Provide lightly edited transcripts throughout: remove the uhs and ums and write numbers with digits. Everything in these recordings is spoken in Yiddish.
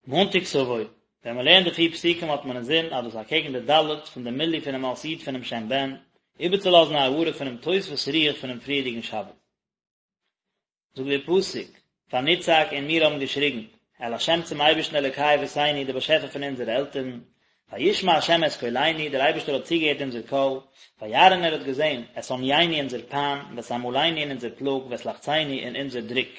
מאנטאג תבוא, ווען מען לערנט די פיר פסוקים האט מען אינזין אז דאס אקעגן די ד' פון די מילוי פונעם אות י' פונעם שם בן, איבערצולאזן א הארה פונעם תוספות רוח פונעם פריערדיגן שבת. זאגט דער פסוק, ונצעק און מיר האבן געשריגן, אל ה' צום אייבערשטן אלוקי אבותינו דער באשעפער פון אונזערע עלטערן, וישמע ה' את קולנו, דער אייבערשטער האט צוגעהערט אונזער קול, וירא און ער האט געזען, את ענינו אונזער פיין, ואת עמלנו און אונזער פלאג, ואת לחצנו און אונזער דרוק.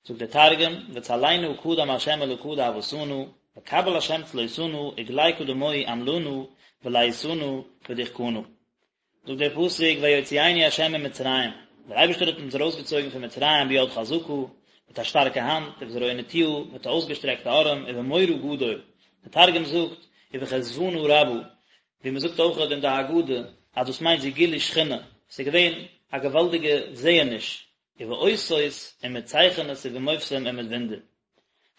זאגט דער תרגום, וצליינא קדם ה' אלקא דאבהתנא, וקבל ה' צלותנא, וגלי קדמוהי עמלנא, ולעיתנא, ודחקנא. זאגט דער פסוק ויוציאנו ה' ממצרים, דער אייבערשטער האט אונז ארויסגעצויגן פון מצרים ביד חזקה, מיט א שטארקע האנט, ובזרוע נטויה, מיט א אויסגעשטרעקטע ארעם, ובמורא גדול, דער תרגום זאגט, ובחזוונא רבא, ווי מען זאגט אויך אין די הגדה, אז דאס מיינט זו גילוי שכינה, עס איז געווען א געוואלדיגע זעעניש, ובאותות, און מיט צייכענעס ובמופתים און מיט וואונדער.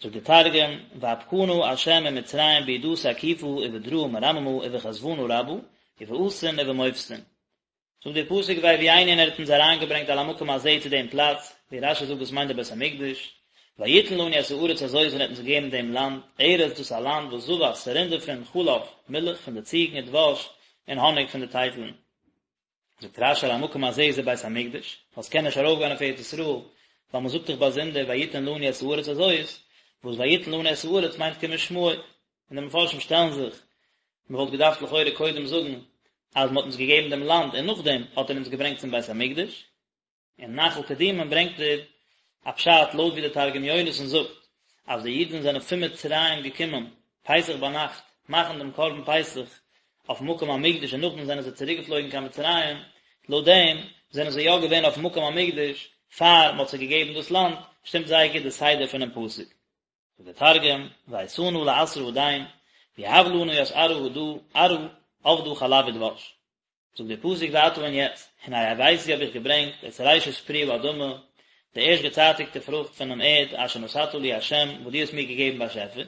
זאגט דער תרגום, ואפקנא ה' ממצרים בידא תקיפא ובדרעא מרממא ובחזוונא רבא, ובאתין ובמופתין. זאגט דער פסוק ויביאנו און ער האט אונז אריינגעברענגט אל המקום הזה צו דעם פלאץ, ווי רש"י זאגט דאס מיינט דער בית המקדש, ויתן לנו את הארץ הזאת און ער האט אונז געגעבן דעם לאנד, ארץ דאס א לאנד וואס זבת ס'רינט דערפון חלב, מילך פון די ציגן ודבש, און האניג פון די טייטלן. זאגט רש"י אל המקום הזה זה בית המקדש, ווייל ס'קען נישט ארויפגיין אויף ארץ ישראל, ווייל מ'זאגט דאך באזונדער ויתן לנו את הארץ הזאת, וואס ויתן לנו את הארץ מיינט כמשמעו, און די מפרשים שטעלן זיך, מ'וואלט געדארפט לכאורה קודם זאגן אז מ'האט אונז געגעבן דעם לאנד און נאכדעם האט ער אונז געברענגט צום בית המקדש, אין נחל קדומים ברענגט ער א פשט לויט ווי דער תרגום יונתן זאגט אז די אידן זענען פון מצרים געקומען פסח ביינאכט מאכן דעם קרבן פסח אויף מקום המקדש און נאכדעם זענען זיי צוריק געפלויגן קיין מצרים, לויט דעם זענען זיי יא געווען אויף מקום המקדש פאר מען האט זיי געגעבן דאס לאנד, שטימט זייער גוט די סדר פונעם פסוק. זאגט דער תרגום, ואייתנא לאתרא הדין, ויהב לנא ית ארעא הדא, ארעא עבדא חלב ודבש. זאגט דער פסוק ועתה און יעצט, הנה הבאתי האב איך געברענגט את ראשית פרי האדמה, די ערשט געצייטיגטע פרוכט פונעם ערד, אשר נתת לי ה', וואס דו האסט מיר געגעבן באשעפער,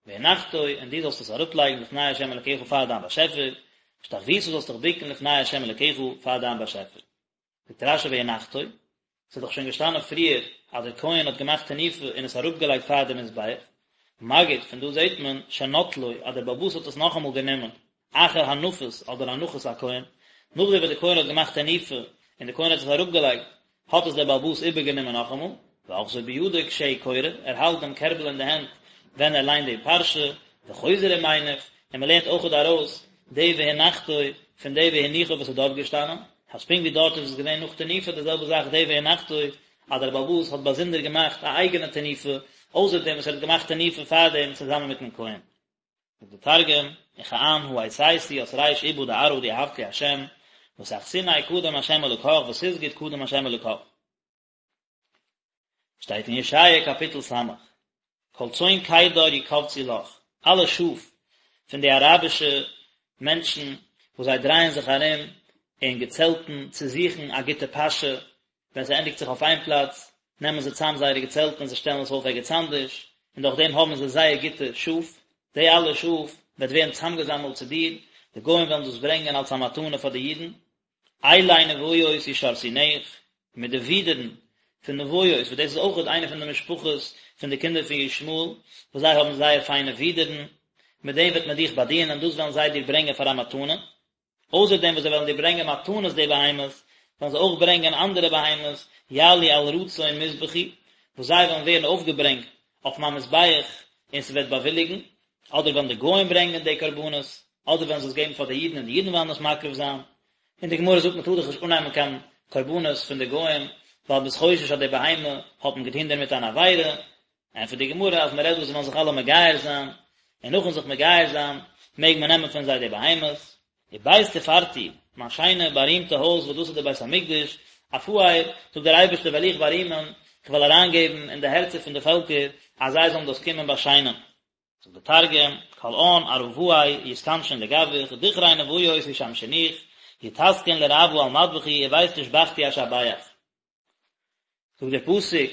והנחתו, און דו זאלסט עס אראפלייגן לפני ה' אלקיך פאר דיין באשעפער, והשתחוית זאלסט דיך בוקן לפני ה' אלקיך פאר דיין באשעפער. זאגט רש"י והנחתו, ס'איז דאך שוין געשטאנען פריער אז דער כהן האט געמאכט תנופה און עס אראפגעלייגט פאר די מזבח, מגיד, פון דא זעט מען שנטלו אז דער בעל הבית האט עס נאכאמאל גענומען, אחר הנפת אדער הנחת הכהן, נאכדעם וואס דער כהן האט געמאכט תנופה און דער כהן האט עס אראפגעלייגט, האט עס דער בעל הבית איבערגענומען נאכאמאל, ואוחזו בידו כשהוא קורא, ער האלט דעם קערבל אין די הענט ווען ער ליינט די פרשה, וחוזר ומניף, און מען לערנט אויכעט ארויס די והנחתו פון די והניחו וואס איז דארט געשטאנען, אז פונקט ווי דארט איז עס געווען נאך תנופה די זעלבע זאך די והנחתו, אז דער בעל הבית האט באזונדער געמאכט א אייגענע תנופה, אויסער דעם וואס ער האט געמאכט תנופה פארדעם צוזאמען מיטן כהן. זאגט דער תרגום, וכען הא אייתיתי ית ריש איבא דארעא דיהבת לי ה', ותחתיניה קדם ה' אלקך ותסגד קדם ה' אלקך. שטייט אין ישעיה קאפיטל ס', כל צאן קדר יקבצו לך, אלע שאף פון די אראבישע מענטשן וואס זיי דרייען זיך ארום אין געצעלטן צו זוכן א גוטע פאשע, ווען ס'ענדיגט זיך אויף איין פלאץ, נעמען זיי צאם זייערע געצעלטן און זיי שטעלן עס אויף ערגעץ אנדערש, און דורך דעם האבן זיי זייער גוטע שאף, די אלע שאף וועט ווערן צאמגעזאמלט צו דיר, די גוים וועלן דאס ברענגען אלס א מתנה פאר די אידן, אילי נביות ישרתונך, מיט די ווידערן פון נביות, וואס דאס איז אויכעט איינע פון די משפחות פון די קינדער פון ישמעאל, וואס זיי האבן זייער פיינע ווידערן, מיט דעם וועט מען דיך באדינען, דאס וועלן זיי דיר ברענגען פאר א מתנה. אויסער דעם וואס זיי וועלן דיר ברענגען מתנות די בהמות, וועלן זיי אויך ברענגען אנדערע בהמות, יעלו על רצון מזבחי, וואס זיי וועלן ווערן אויפגעברענגט אויף מיין מזבח, און ס'וועט באוויליגן, אדער וועלן די גוים ברענגען די קרבנות, אדער וועלן זיי עס געבן פאר די אידן און די אידן וועלן עס מקריב זיין. און די גמרא זאגט מען טאר דאך נישט אננעמען קיין קרבנות פון די גוים, ווייל מ'איז חושש אז די בהמה האט מען געטון דערמיט אן עבירה, ענטפערט די גמרא אז מ'רעדט דא זיי וועלן זיך אלע מגייר זיין, און נאכן זיך מגייר זיין מעג מען נעמען פון זיי די בהמות. ובית תפארתי, מיין שיינע בארימטע הויז וואס דאס איז דער בית המקדש, אפאר, זאגט דער אייבערשטער וועל איך בארימען, איך וועל אריינגעבן אין די הערצער פון די פעלקער אז זיי זאלן דאס קומען באשיינען. זאגט דער תרגום, כל עאן ערבאי יתכנשון לגביך, דכרי נביות ישמשינוך, יטסקון לרעוא על מדבחי ובית תשבחתי אשבח. זאגט דער פסוק,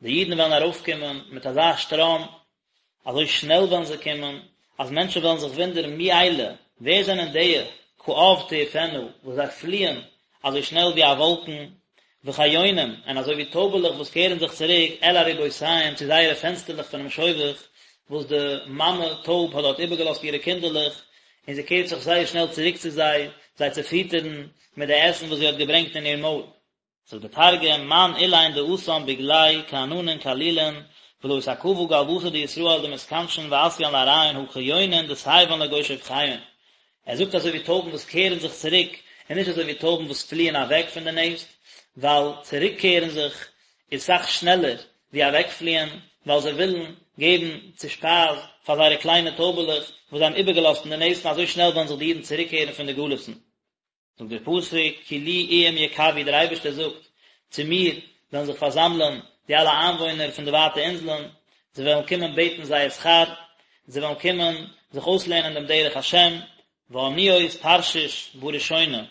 די אידן וועלן ארויפקומען מיט אזא שטראם, אזוי שנעל וועלן זיי קומען, אז מענטשן וועלן זיך וואונדערן מי אלה, ווער זענען די, כעב תעופינה, וואס זיי פליען אזוי שנעל ווי א וואלקן, וכיונים, און אזוי ווי טויבעלעך וואס קערן זיך צוריק אל ארובותיהם צו זייערע פענסטערלעך פונעם שובך, וואס די מאמע טויב האט דארט איבערגעלאזט אירע קינדערלעך, און זי קערט זיך זייער שנעל צוריק צו זיי, זיי צו פיטערן מיט די עסן וואס זי האט געברענגט אין איר מויל. זאגט דער תרגום, מאן אלין דאתן בגליה כעננין קלילין, ולא אתעכבא גלותא דישראל דמתכנשן ואתיין לארעיהון הא כיונין דסייבן לגו שופכיהון. ער זאגט אזוי ווי טויבן וואס קערן זיך צוריק, און נישט אזוי ווי טויבן וואס פליען אוועק פון די נעסט, ווייל צוריקקערן זיך איז סאך שנעלער ווי אוועקפליען, ווייל זיי ווילן געבן צו שפייז פאר זייערע קליינע טויבעלעך וואס זיי האבן איבערגעלאזט אין די נעסט און אזוי שנעל וועלן זיך די אידן צוריקקערן פון די גלות'ן. זאגט דער פסוק, כי לי איים יקוו, דער אייבערשטער זאגט, צו מיר וועלן זיך פארזאמלען די אלע איינוואוינער פון די ווייטע אינזלען, זיי וועלן קומען בעטן זייער שכר, זיי וועלן קומען זיך אויסלערנען דעם דרך השם, ואניות תרשיש בראשונה,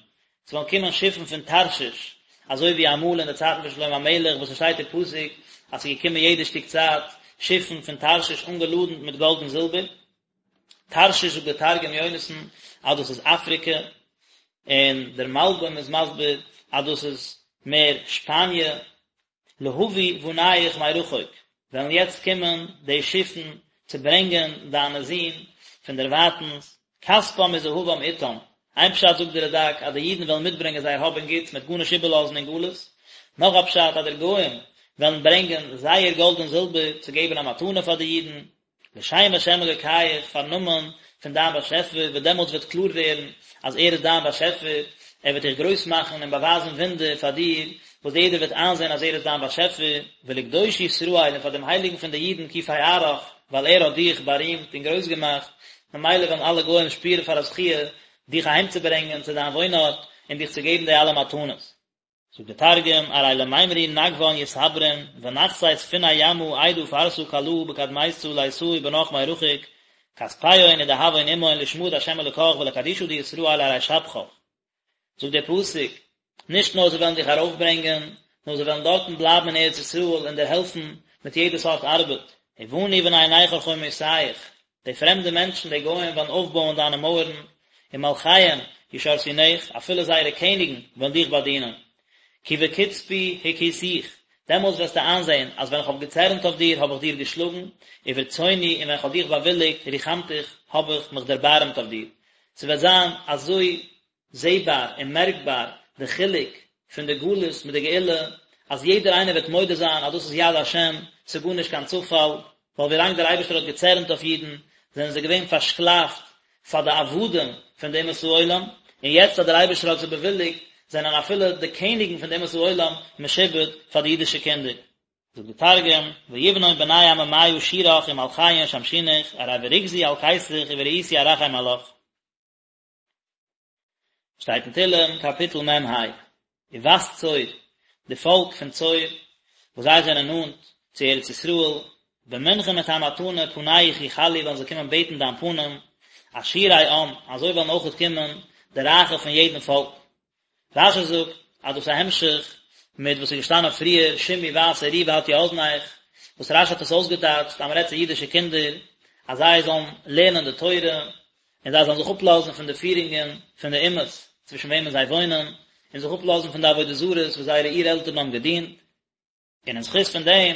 ס'וועלן קומען שיפן פון תרשיש, אזוי ווי אמאל אין די צייטן פון שלמה המלך, וואס עס שטייט אין פסוק אז ס'איז געקומען יעדע שטיק צייט שיפן פון תרשיש אנגעלאדנט מיט גאלד און זילבער. תרשיש זאגט דער תרגום יונתן אז דאס איז אפריקע, און דער מלבים איז מסביר אז דאס איז מער שפאניע. להביא בניך מרחוק, וועלן יעצט קומען די שיפן צו ברענגען דיינע זין פון דערווייטנס, כספם וזהבם אתם, איין פשט זאגט דער רד"ק אז די אידן וועלן מיטברענגען זייער האב און גוטס מ'וועט גארנישט איבערלאזן אין גלות, נאך א פשט אז די גוים וועלן ברענגען זייער גאלד און זילבער צו געבן א מתנה פאר די אידן, לשם השם אלוקיך, פארן נאמען פון דיין באשעפער, וואס דעמאלטס וועט קלאר ווערן אז ער איז דיין באשעפער, ער וועט דיך גרויס מאכן און באווייזן וואונדער פאר דיר, וואס יעדער וועט איינזען אז ער איז דיין באשעפער, ולקדוש ישראל, און פאר דעם הייליגן פון די אידן כי פארך, ווייל ער האט דיך בארימט און גרויס געמאכט, ממילא וועלן אלע גוים שפירן פאר א זכיה דיך אהיימצוברענגען צו דיין וואוינארט און דיך צו געבן די אלע מתנות. זאגט דער תרגום, ארי למימרו נגוון יתברון, ונחתי ספיני ימא עידא פרסא קלאה בקדמיתא ליתאי בנך מרחוק, כספיהון ודהבהון עמהון לשמא דהשם אלקך ולקדישא דישראל ארי שבחך. זאגט דער פסוק, נישט נאר זיי וועלן דיך ארויפברענגען, נאר זיי וועלן דארטן בלייבן אין ארץ ישראל און דיר העלפן מיט יעדע סארט ארבעט, ובנו בני נכר חומותיך, די פרעמדע מענטשן, די גוים, וועלן אויפבויען דיינע מויערן, ומלכיהם ישרתונך, אפילו זייערע קעניגן וועלן דיך באדינען. כי בקצפי הכיתיך, דעמאלס וועסטו איינזען, אז ווען איך האב געצערנט אויף דיר, האב איך דיר געשלאגן, וברצוני, און ווען איך האב דיך באוויליגט, רחמתיך, האב איך מיך דערבארעמט אויף דיר. ס'וועט זיין אזוי זעבאר און מערקבאר די חילוק פון די גלות מיט די גאולה, אז יעדער איינער וועט מודה זיין אז דאס איז יד השם, ס'איז גארנישט קיין צופאל, ווייל ווילאנג דער אייבערשטער האט געצערנט אויף אידן, זענען זיי געווען פארשקלאפט פאר די עבדים פון די אומות העולם, און יעצט אז דער אייבערשטער האט זיי באוויליגט, זענען אפילו די קעניגן פון די אומות העולם משועבד פאר די אידישע קינדער. זאגט די תרגום, ויבנון בני עממיא שורך ומלכיהון ישמשונך, ארי ברוגזי אלקיתיך ובריעותי ארחם עלך. שטייט אין תהלים קאפיטל מ ה, ובת צור, די פאלק פון צור, וואס זיי זענען נאנט צו ארץ ישראל, במנחה מיט א מתנה פניך יחלו וועלן זיי קומען בעטן דיין פנים, עשירי עם, אזוי וועלן אויכעט קומען די רייכע פון יעדן פאלק. רשי זאגט אז דאס איז א המשך מיט וואס איז געשטאנען פריער שמעי בת וראי והטי אזנך, וואס רשי האט עס אויסגעטייטשט אז מען רעדט צו אידישע קינדער אז זיי זאלן לערנען די תורה און זיי זאלן זיך אפלאזן פון די פירונגען פון די אומות צווישן וועמען זיי וואוינען, און זיך אפלאזן פון די עבודה זרות וואס זייערע אור-עלטערן האבן געדינט. און אין זכות פון דעם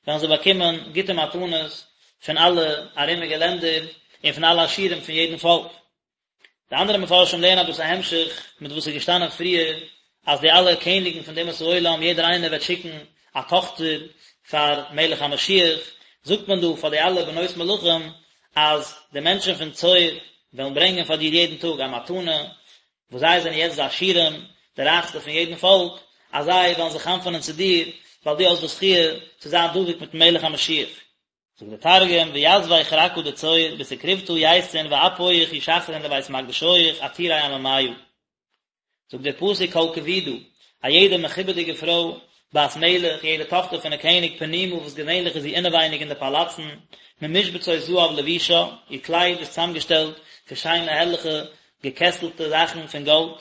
וועלן זיי באקומען גוטע מתנות פון אלע ארומיגע לענדער און פון אלע עשירים פון יעדן פאלק. די אנדערע מפרשים לערנען אז דאס איז א המשך מיט וואס איז געשטאנען פריער, אז די אלע קעניגן פון די אומות העולם, יעדער איינער וועט שיקן א טאכטער פאר מלך המשיח, זאגט מען דא פאר די אלע בנות מלכים אז די מענטשן פון צור וועלן ברענגען פאר דיר יעדן טאג א מתנה, וואס זיי זענען יעצט די עשירים, די רייכסטע פון יעדן פאלק, אז זיי וועלן זיך חנפ'ענען צו דיר, ווייל דו האסט די זכיה צו זיין דבוק מיט'ן מלך המשיח. זאגט דער תרגום, ויתבי כרכא דצור, בתקרובתא ייתון ואפויך ישחרון לבית מקדשיך עתירי עממיא. זאגט דער פסוק כל כבודה, א יעדע מכובד'יגע פרוי, בת מלך, יעדע טאכטער פון א קעניג פנימה וואס געווענליך איז זי אינעווייניג אין די פאלאצן, ממשבצות זהב לבושה, איר קלייד איז צוזאמגעשטעלט פון שיינע הערליכע געקעסטלטע זאכן פון גאלד.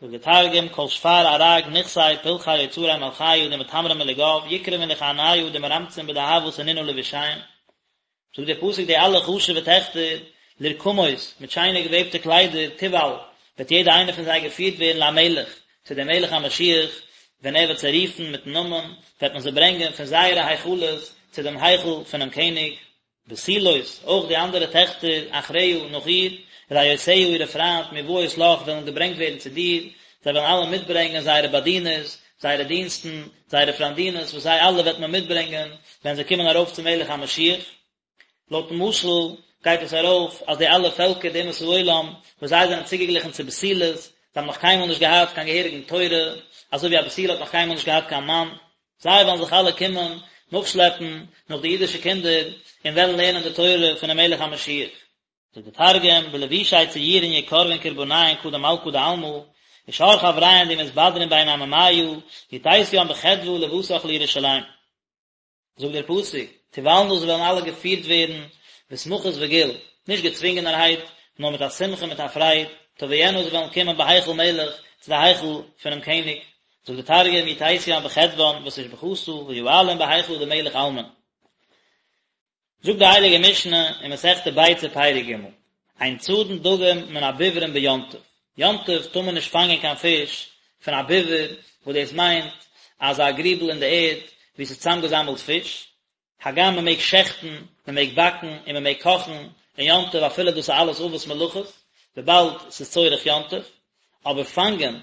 זאגט דער תרגום, כל שפר ארג נכסי פלחי אוצרי מלכיא דמטמרן מלגיו יקרבון לכהניא דמרמצין בדהבא סנינא לבושיהון. זאגט דער פסוק די אלע חשוב'ע טעכטער, לרקמות, מיט שיינע געוועבטע קליידער, תובל, וועט יעדע איינע פון זיי געפירט ווערן למלך, צו דעם מלך המשיח, ווען ער וועט זיי רופן מיט'ן נאמען, וועט מען זיי ברענגען פון זייערע היכלות צו דעם היכל פונעם קעניג. בתולות, אויך די אנדערע טעכטער, אחריה, נאך איר, רעותיה אירע פריינט, מובאות לך, וועלן געברענגט ווערן צו דיר, זיי וועלן אלע מיטברענגען זייערע באדינערס, זייערע דינסטן, זייערע פריינדינעס, וואס זיי אלע וועט מען מיטברענגען, ווען זיי קומען ארויף צום מלך המשיח. לויטן משל גייט עס ארויף אז די אלע פעלקער די אומות העולם וואס זיי זענען צוגעגליכן צו בתולות, זיי האבן נאך קיינמאל נישט געהאט קיין געהעריגן תורה, אזוי ווי א בתולה האט נאך קיינמאל נישט געהאט קיין מאן, זיי וועלן זיך אלע קומען נאכשלעפן נאך די אידישע קינדער און וועלן לערנען די תורה פונעם מלך המשיח. זאגט דער תרגום, בלבושי ציורין יקרבון קרבניהון קדם מלכא דעלמא, ושאר חבריהון די מתבדרין בין עממיא, יתיתיין בחדוה לבתך לירושלים. זאגט דער פסוק, תובלנה זיי וועלן אלע געפירט ווערן בשמחות וגיל, נישט געצווינגענערהייט, נאר מיט א שמחה מיט א פרייד, תבואינה זיי וועלן קומען בהיכל מלך, צו די היכל פונעם קעניג, זאגט דער תרגום, יתיתיין בחדוון ותושבחתא ויעלון בהיכלא דמלך עלמין. זאגט די הייליגע משנה אין מסכת ביצה פרק ג', אין צדין דגים מן הביברין ביום טוב, יום טוב טאר מען נישט פאנגען קיין פיש פון א ביבר, וואס דאס מיינט אזא גריבל אין די ערד וואו ס'איז צוזאמגעזאמלט פיש, הגם מען מעג שעכטן, מען מעג באקן און מען מעג קאכן אין יום טוב אפילו דאס איז אלעס אבות מלאכות, וויבאלד ס'איז צורך יום טוב, אבער פאנגען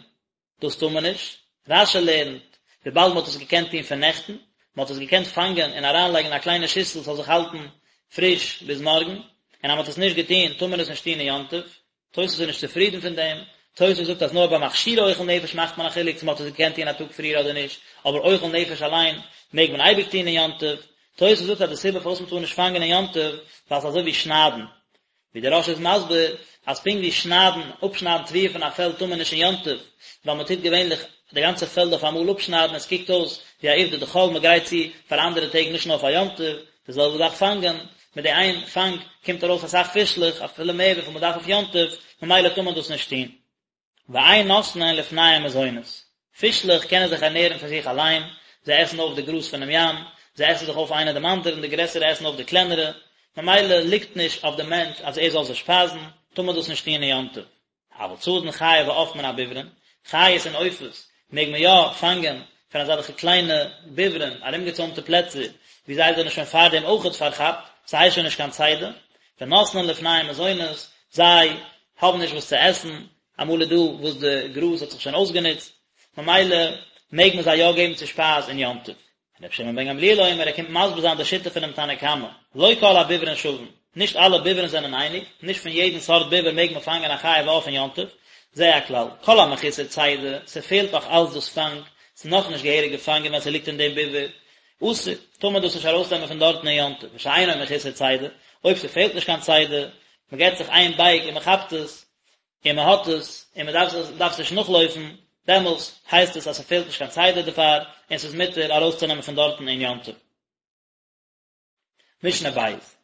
דאס טאר מען נישט. רש"י לערנט, וויבאלד מען האט עס געקענט טון פון נעכטן, מען האט עס געקענט פאנגען און אריינלייגן אין א קליינע שיסל ס'זאל זיך האלטן פריש ביז מארגן, און אז מען האט עס נישט געטון טאר מען עס נישט טון אין יום טוב. תוס' איז נישט צופרידן פון דעם, תוס' זאגט אז נאר ביי מכשירי אוכל נפש מאכט מען א חילוק צו מען האט עס געקענט טון א טאג פריער אדער נישט, אבער אוכל נפש אליין מעג מען אייביג טון אין יום טוב. תוס' זאגט אז די סיבה פארוואס מען טאר נישט פאנגען אין יום טוב, ווייל ס'איז אזוי ווי שניידן, ווי דער רא"ש איז מסביר אז פונקט ווי שניידן, אפשניידן תבואה פון א פעלד טאר מען נישט אין יום טוב, ווייל מען טוט געווענליך די גאנצע פעלד אויף אמאל אפשניידן, עס קוקט אויס ווי א עובדא דחול, מען גרייט צו פאר אנדערע טעג נישט נאר פאר יום טוב, די זעלבע זאך פאנגען, מיט די איין פאנג קומט ארויס אסאך פישלעך, אפילו מער וויפיל מען דארף אויף יום טוב, ממילא טאר מען דאס נישט טון. ואין נותנין לפניהם מזונות, פישלעך קענען זיך ערנערן פון זיך אליין, זיי עסן אויף די גראז פונעם ים, זיי עסן זיך אויף איינער דעם אנדערן, די גרעסערע עסן אויף די קלענערע, ממילא ליגט נישט אויף דעם מענטש אז ער זאל זיי שפייזן, טאר מען דאס נישט טון אין יום טוב. אבל צדין חיה ועוף מן הביברין, חיות און עופות מעג מען יא פאנגען פון אזעלכע קליינע ביברין, ארומגעצוימטע פלעצער, וואו זיי זענען שוין פארדעם אויכעט פארכאפט, ס'הייסט שוין נישט קיין צידה, ונותנין לפניהם מזונות, זיי האבן נישט וואס צו עסן, אמאל איז דא וואס די גראז האט זיך שוין אויסגענוצט, ממילא מעג מען זיי יא געבן צו שפייז אין יום טוב. רבי שמעון בן גמליאל אומר, ער קומט מסביר זיין די שיטה פונעם תנא קמא, לא כל הביברין שווין, נישט אלע ביברין זענען אייניג, נישט פון יעדן סארט ביבר מעג מען פאנגען א חיה ועוף אין יום טוב, זה הכלל, כל המחוסר צידה, ס'פעלט נאך אלץ דאס פאנג, ס'איז נאכנישט געהעריג געפאנגען ווען ס'ליגט אין דעם ביבר, אסור, טאר מען דאס נישט ארויסנעמען פון דארטן אין יום טוב, ושאינו מחוסר צידה, אויב ס'פעלט נישט קיין צידה, מ'געט זיך איין בייג און מ'כאפט עס, און מען האט עס, און מען דארף עס דארף עס נישט נאכלויפן, דעמאלס הייסט עס אז ס'פעלט נישט קיין צידה דערפאר, און ס'איז מותר ארויסצונעמען פון דארטן אין יום טוב. משנה בית.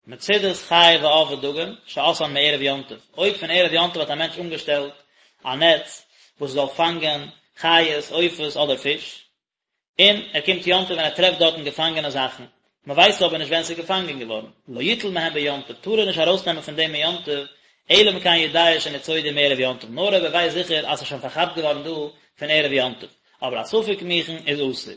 מצודות חיה ועוף ודגים, שעשאן מערב יום טוב, אויב פון ערב יום טוב האט א מענטש אנגעשטעלט א נעץ וואס זאל פאנגען חיות, עופות אדער פיש, און ער קומט יום טוב און ער טרעפט דארטן געפאנגענע זאכן, מען ווייסט אבער נישט ווען ס'איז געפאנגען געווארן, לא יטול מהן ביום טוב, טאר ער נישט ארויסנעמען פון דעם אין יום טוב, אלא אם כן יודע שניצודו מערב יום טוב, נאר אויב ער ווייסט זיכער אז ס'איז שוין פארכאפט געווארן דא פון ערב יום טוב, אבער א ספק מוכן איז אסור.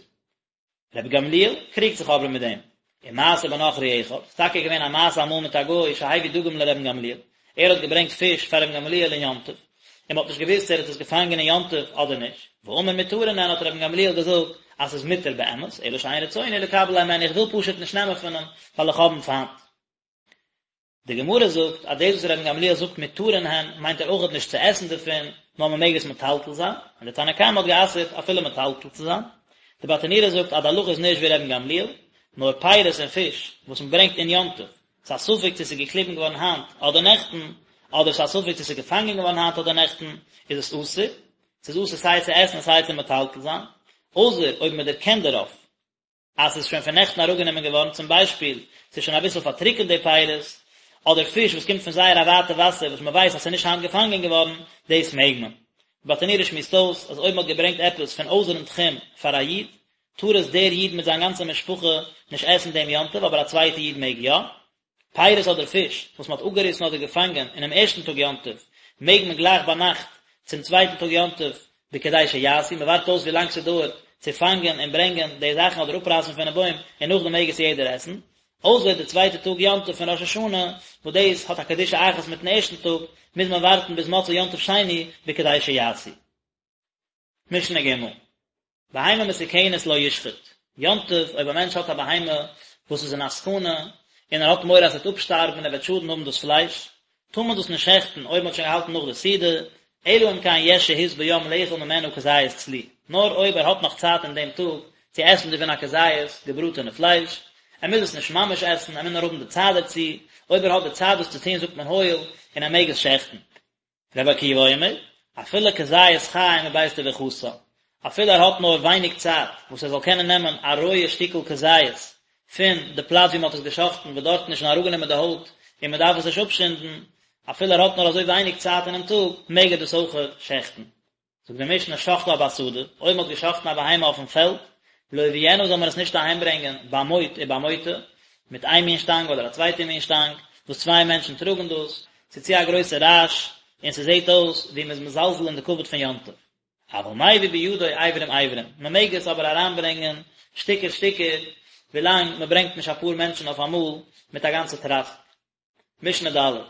רבי גמליאל קריגט זיך אבער מיט דעם. ומעשה בנכרי אחד, ס'איז טאקע געווען א מעשה אמאל מיט א גוי שהביא דגים לרבן גמליאל, ער האט געברענגט פיש פאר רבן גמליאל אין יום טוב, און מ'האט נישט געוואוסט צו ער האט עס געפאנגען אין יום טוב אדער נישט, ואמר מותרין הן האט רבן גמליאל געזאגט אז ס'איז מותר באמת, אלא שאין רצוני לקבל הימנו איך וויל פשוט נישט נעמען פון אים ווייל איך האב אים פיינט. די גמרא זאגט אז דאס וואס רבן גמליאל זאגט מותרין הן מיינט ער אויכעט נישט צו עסן דערפון, נאר מען מעג עס מטלטל זיין, און די תנא קמא האט גע'אסר'ט אפילו מטלטל צו זיין. די ברטנורא זאגט אז די הלכה איז נישט ווי רבן גמליאל, נאר פירות און פיש וואס מען ברענגט אין יום טוב, ס'איז א ספק צו ס'איז געקליבן געווארן היינט אדער נעכטן, אדער ס'איז א ספק צו ס'איז געפאנגען געווארן היינט אדער נעכטן, איז עס אסור, ס'איז אסור סיי צו עסן און סיי צו מטלטל זיין, אויסער אויב מען דערקענט דערויף אז ס'איז שוין פון נעכטן אראפגענומען געווארן, צום ביישפיל, ס'איז שוין אביסל פארטריקענט די פירות, אדער פיש וואס קומט פון זייער א ווייטע וואסער וואס מען ווייסט אז ס'איז נישט היינט געפאנגען געווארן, דאס מעג מען. די ברטנורא שמועסט אויס אז אויב מ'האט געברענגט עפעס פון אויסערן תחום פאר א איד, טאר עס דער איד מיט זיין גאנצע משפחה נישט עסן דעם יום טוב, אבער א צווייטע איד מעג יא. פירות אדער פיש וואס מען האט אפגעריסן אדער געפאנגען אינעם ערשטן טאג יום טוב, מעג מען גלייך ביינאכט צום צווייטן טאג יום טוב בכדי שיעשו, מען ווארט אויס ווי לאנג ס'דויערט צו פאנגען און ברענגען די זאכן אדער אפרייסן פונעם בוים און נאכדעם מעג עס יעדער עסן. אויסער די צווייטע טאג יום טוב פון ראש השנה, וואס דאס האט א קדושה אחת מיטן ערשטן טאג, מוז מען ווארטן ביז מוצאי יום טוב שני בכדי שיעשו. משנה ג', בהמה מסוכנת לא ישחט, יום טוב אויב א מענטש האט א בהמה וואס איז אין א סכנה, און ער האט מורא אז עס וועט אפשטארבן און ער וועט שאדן האבן דאס פלייש, טאר מען דאס נישט שעכטן אויב מען האט שוין געהאלטן נאך די סעודה, אלא אם כן יש שהות ביום לאכול ממנה כזית צלי, נאר אויב ער האט נאך צייט אין דעם טאג צו עסן דערפון א כזית געבראטענע פלייש, ער מוז עס נישט ממש עסן, ער מוז נאר האבן די צייט דערצו, אויב ער האט די צייט דאס צו טון זאגט מען הואיל, און ער מעג עס שעכטן. רבי עקיבא אומר, אפילו כזית חי מבית טביחתה, אפילו ער האט נאר ווייניג צייט וואס ער זאל קענען נעמען א רויע שטיקל כזית פון די פלאץ ווי מען האט עס געשחט'ן וואס דארטן איז שוין אראפגענומען די הויט און מען דארף עס נישט אפשינדן, אפילו ער האט נאר אזוי ווייניג צייט אינעם טאג, מעג ער דאס אויכעט שעכטן. זאגט די משנה שחטה בשדה, אויב מען האט געשחט'ן א בהמה אויפן פעלד, לא יביאנה זאל מען עס נישט אהיימברענגען במוט ובמוטה, מיט איין מין שטאנג אדער א צווייטע מין שטאנג, וואס צוויי מענטשן טראגן דאס, ס'איז צו א גרויסע רעש, און ס'זעט אויס ווי מ'איז מזלזל אין די כבוד פון יום טוב. אבל מביא בידו אברים אברים, מען מעג עס אבער אריינברענגען שטיקער שטיקער, ווילאנג מען ברענגט נישט אפאר מענטשן אויף אמאל מיט א גאנצע טראסק. משנה ד',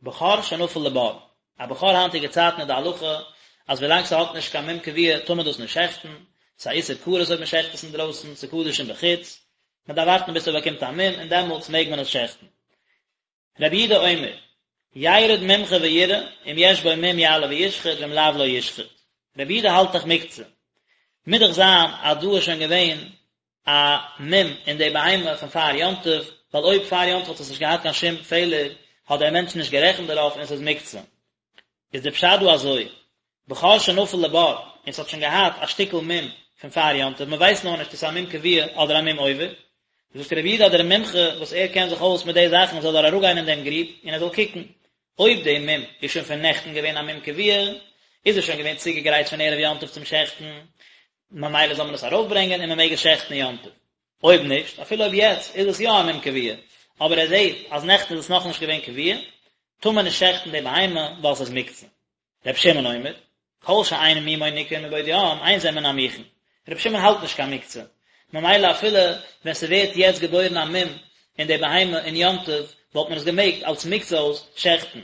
בכור שנפל לבור, א בכור היינטיגע צייטן איז די הלכה אז ווילאנג ס'האט נישט קיין מום קבוע טאר מען דאס נישט שעכטן, ס'איז א איסור כרת אויב מ'שעכט עס אינדרויסן, ס'איז קדשים בחוץ, מ'דארף ווארטן ביז ס'באקומט א מום און דעמאלטס מעג מען עס שעכטן. רבי יהודה אומר, ירד מומחה ויראה, אם יש בו מום יעלה וישחט ואם לאו לא ישחט. רבי יהודה האלט דאך מוקצה. מוז דאך זיין אז דא איז שוין געווען א מום אין די בהמה פון פאר יום טוב, ווייל אויב פאר יום טוב האט עס נישט געהאט קיין שום פעלער, האט דער מענטש נישט גערעכנט דערויף און עס איז מוקצה. איז די פשט דא אזוי, בכור שנפל לבור, און ס'האט שוין געהאט א שטיקל מום פון פאר יום טוב, מ'ווייסט נאר נישט צו ס'איז א מום קבוע אדער א מום עובר, זאגט רבי יהודה אז דער מומחה וואס ער קען זיך אויס מיט די זאכן זאל ער אראפגיין אין דעם גריב און ער זאל קוקן, אויב די מום איז שוין פון נעכטן געווען א מום קבוע, איז עס שוין געווען צוגעגרייט פון ערב יום טוב צום שעכטן, ממילא זאל מען עס ארויפברענגען און מ'מעג עס שעכטן יום טוב. אויב נישט, אפילו אויב יעצט איז עס יא א מום קבוע, אבער ער זעט אז נעכטן איז עס נאכנישט געווען קבוע, טאר מען נישט שעכטן די בהמה ווייל ס'איז מוקצה. רבי שמעון אומר, כל שאין מומו ניכר מבעוד יום, אין זה מן המוכן. רבי שמעון האלט נישט קיין מוקצה, ממילא אפילו ווען ס'ווערט יעצט געבוירן א מום אין די בהמה אין יום טוב, וואלט מען עס געמעגט אלס מוקצה אויס שעכטן.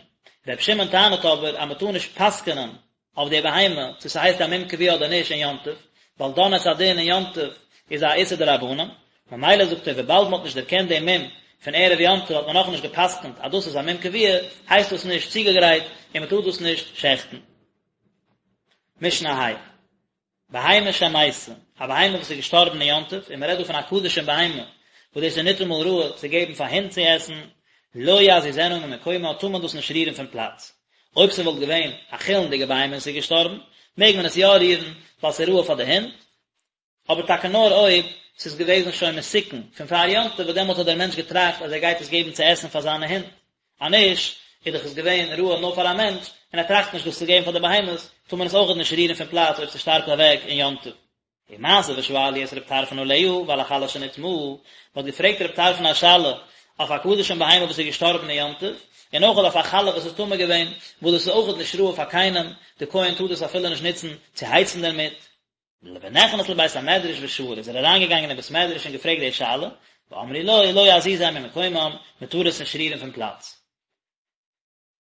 רבי שמעון טענה'ט אבער אז מ'טאר נישט פסק'נען אויף די בהמה צו ס'הייסט א מום קבוע אדער נישט אין יום טוב, ווייל דן את הדין אין יום טוב איז א איסור דרבנן, ממילא זאגט ער וויבאלד מ'האט נישט דערקענט דעם מום פון ערב יום טוב האט מען נאכנישט גע'פסק'נט אז דאס איז א מום קבוע, הייסט דאס נישט צוגעגרייט און מ'טאר דאס נישט שעכטן. משנה ה'. בהמה שמתה, א בהמה וואס איז געשטארבן אין יום טוב, און מ'רעדט דא פון א קדשים בהמה, וואס דאס איז ניטאמאל ראוי צו געבן פאר הינט צו עסן, לא יזיזנה ממקומה טאר מען דאס נישט רירן פון פלאץ. אויב ס'וואלט געווען א חולין'דיגע בהמה און ס'איז געשטארבן, מעג מען עס יא רירן, ווייל ס'איז ראוי פאר די הינט, אבער טאקע נאר אויב ס'איז געוועזן שוין מתוקן פון פאר יום טוב וואס דעמאלט האט דער מענטש געטראכט אז ער גייט עס געבן צו עסן פאר זיינע הינט, אז נישט איז דאך עס געווען ראוי נאר פאר א מענטש און ער טראכט נישט דאס צו געבן פאר די בהמות, טאר מען עס אויכעט נישט רירן פון פלאץ אויב ס'שטארבט אוועק אין יום טוב. ומעשה ושאלו את רב טרפון עליה ועל החלה שנטמאה, מ'האט געפרעגט רב טרפון א שאלה אויף א קדשים בהמה וואס איז געשטארבן אין יום טוב, און אויכעט אויף א חלה וואס איז טמא געווען, וואס דאס איז אויכעט נישט ראוי פאר קיינעם, די כהן טאר דאס אפילו נישט נוצן צו הייצן דערמיט. ונכנס לבית המדרש ושאל, איז ער אריינגעגאנגען אין בית מדרש און געפרעגט די שאלה, ואמרו לו, לא יזיזם ממקומם, מען טאר עס נישט רירן פון פלאץ.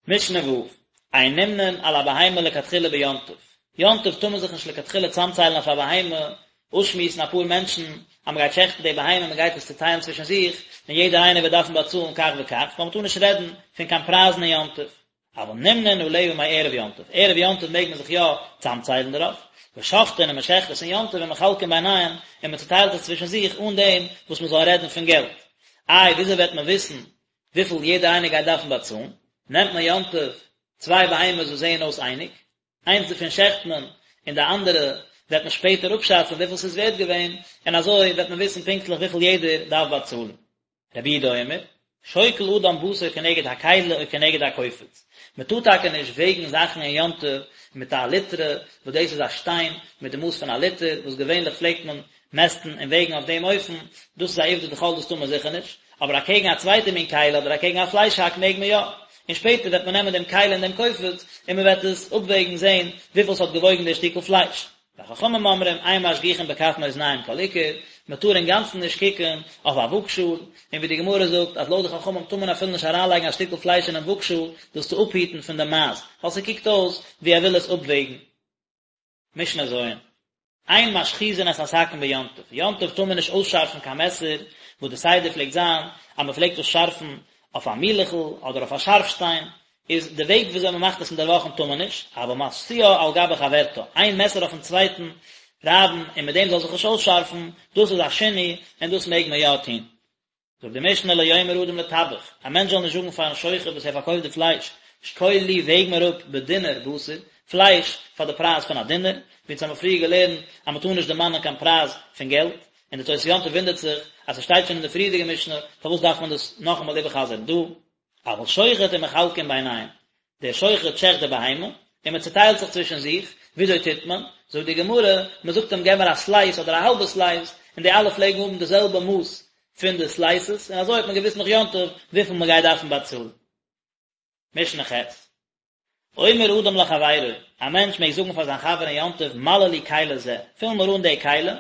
משנה ו', אין נמנין על הבהמה לכתחילה ביום טוב, יום טוב טאר מען זיך נישט לכתחילה צאמציילן אויף א בהמה, אויסשמועסן אפאר מענטשן אז מען גייט שעכטן די בהמה, מען גייט עס צוטיילן צווישן זיך, און יעדער איינער וועט דארפן באצאלן כך וכך, ווייל מען טאר נישט רעדן פון קיין פרייזן אין יום טוב. אבל נמנין עליה מערב יום טוב, ערב יום טוב מעג מען זיך יא צאמציילן דערויף, ושוחטין און מען שעכט עס אין יום טוב ומחלקין ביניהם און מען צוטיילט עס צווישן זיך אן דעם וואס מען זאל רעדן פון געלט. איי וויאזוי וועט מען וויסן וויפיל יעדער איינער גייט דארפן באצאלן? נעמט מען יום טוב צוויי בהמות וואס זעען אויס אייניג, איינס דערפון שעכט מען און די אנדערע וועט מען שפעטער אפשאצן וויפיל ס'איז ווערט געווען, און אזוי וועט מען וויסן פונקטליך וויפיל יעדער דארף באצאלן. רבי יהודה אומר, שוקל אדם בשר כנגד הכלי או כנגד הקופץ, מען טאר טאקע נישט וועגן זאכן אין יום טוב מיט א ליטרא, וואס דאס איז א שטיין מיט די מאס פון א ליטער, וואס געווענליך פלעגט מען מעסטן און וועגן אויף דעם אופן, דאס איז א עובדא דחול דאס טאר מען זיכער נישט, אבער אקעגן א צווייטע מין כלי אדער אקעגן א פלייש האק מעג מען יא, און שפעטער וועט מען נעמען דעם כלי און דעם קופץ און מען וועט עס אפוועגן זען וויפיל ס'האט געוואויגן דער שטיקל פלייש. וחכמים אומרים אין משגיחין בכף מאזניים כל עיקר, מען טאר אינגאנצן נישט קוקן אויף א וואגשאל, און ווי די גמרא זאגט אז לויט די חכמים טאר מען אפילו נישט אריינלייגן א שטיקל פלייש אינעם וואגשאל דאס צו אפהיטן פון די מייז, ווייל ס'קוקט אויס ווי ער וויל עס אפוועגן. משנה ז', אין משחיזין את הסכין ביום טוב, יום טוב טאר מען נישט אויסשארפן קיין מעסער, וואס די סדר פלעגט זיין אז מען פלעגט עס שארפן אויף א מילעכל אדער אויף א שארף שטיין, איז די וועג וויאזוי מען מאכט עס אינדערוואכן טאר מען נישט, אבל משיאה על גבי חברתה, איין מעסער אויפן צווייטן רייבן און מיט דעם זאל זיך נישט אויסשארפן, דאס איז א שינוי און דאס מעג מען יא טון. זאגט די משנה לא יאמר אדם לטבח, א מענטש זאל נישט זאגן פארן שוחט וואס ער פארקויפט די פלייש, שקול לי וועג מיר אפ בדינר בשר, פלייש פאר די פרייז פון א דינר, ווי אונז האבן פריער געלערנט אז מען טאר נישט דערמאנען קיין פרייז פון געלט, און די תוס' יום טוב וואונדערט זיך אז ס'שטייט שוין אין די פריערדיגע משנה, פארוואס דארף מען דאס נאכאמאל איבערחזר'ן דא? אבל שוחט ומחלקין ביניהם, דער שוחט שעכט די בהמה, און מען צעטיילט זיך צווישן זיך, וויאזוי טוט מען? זאגט די גמרא, מען זאגט אים געב מיר א סלייס אדער א האלבע סלייס, און די אלע פלעגן האבן די זעלבע מאס פון די סלייסעס, און אזוי האט מען געוואוסט נאך יום טוב וויפיל מען גייט דארפן באצאלן. משנה ח'. אומר אדם לחבירו, א מענטש מעג זאגן פאר זיין חבר אין יום טוב מלא לי כלי זה, פיל מיר אן די כלי,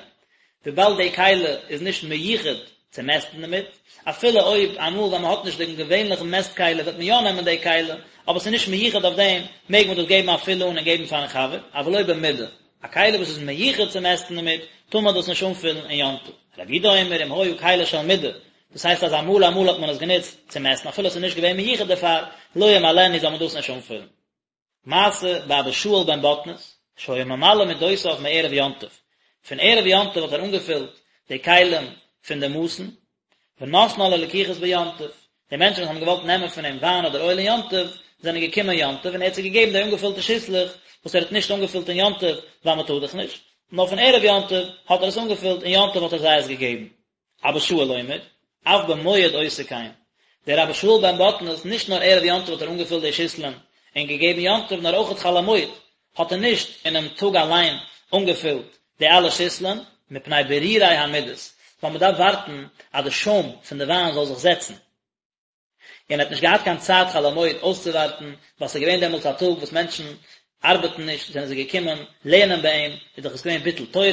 וויבאלד די כלי איז נישט מיוחד צו מעסטן דערמיט, אפילו אויב אמאל ווען מען האט נישט דעם געווענליכן מעסט כלי וועט מען יא נעמען די כלי, אבער ס'איז נישט מיוחד אויף דעם, מעג מען דאס געבן א פיל אן און געבן פארן חבר, אבל לא במידה, א כלי וואס איז מיוחד צו מעסטן דערמיט, טאר מען דאס נישט אנפילן אין יום טוב. רבי יהודה אומר אם היה כלי של מידה, דאס הייסט אז אמאל אמאל האט מען עס גענוצט צו מעסטן אפילו עס איז נישט געווען מיוחד דערפאר, לא ימלאנו זאל מען דאס נישט אנפילן. מעשה באבא שאול בן בטנית, שהיה ממלא מדותיו מערב יום טוב, פון ערב יום טוב האט ער אנגעפילט די כלים פון די מאסן, ונתנה ללקוחות ביום טוב, די מענטשן וואס האבן געוואלט נעמען פון אים וויין אדער אויל אין יום טוב, זענען געקומען יום טוב און ער האט זיי געגעבן די אנגעפילטע שיסלעך וואס ער האט נישט אנגעפילט אין יום טוב ווייל מען טאר דאך נישט, נאר פון ערב יום טוב האט ער עס אנגעפילט און יום טוב האט ער זיי עס געגעבן. אבא שאול אומר, אף במועד עושה כן. דער אבא שאול בן בטנית, נישט נאר ערב יום טוב האט ער אנגעפילט די שיסלען און געגעבן יום טוב, נאר אויכעט חול המועד האט ער נישט אינעם טאג אליין אנגעפילט די אלע שיסלען, מפני בירורי המידות, ווייל מען דארף ווארטן אז די שוים פון די וויין זאל זיך זעצן. און ער האט נישט געהאט קיין צייט חול המועד אויסצואווארטן, ווייל ס'איז געווען דעמאלטס א טאג וואס מענטשן ארבעטן נישט, זענען זיי געקומען לערנען ביי אים, איז דאך עס געווען ביטול תורה,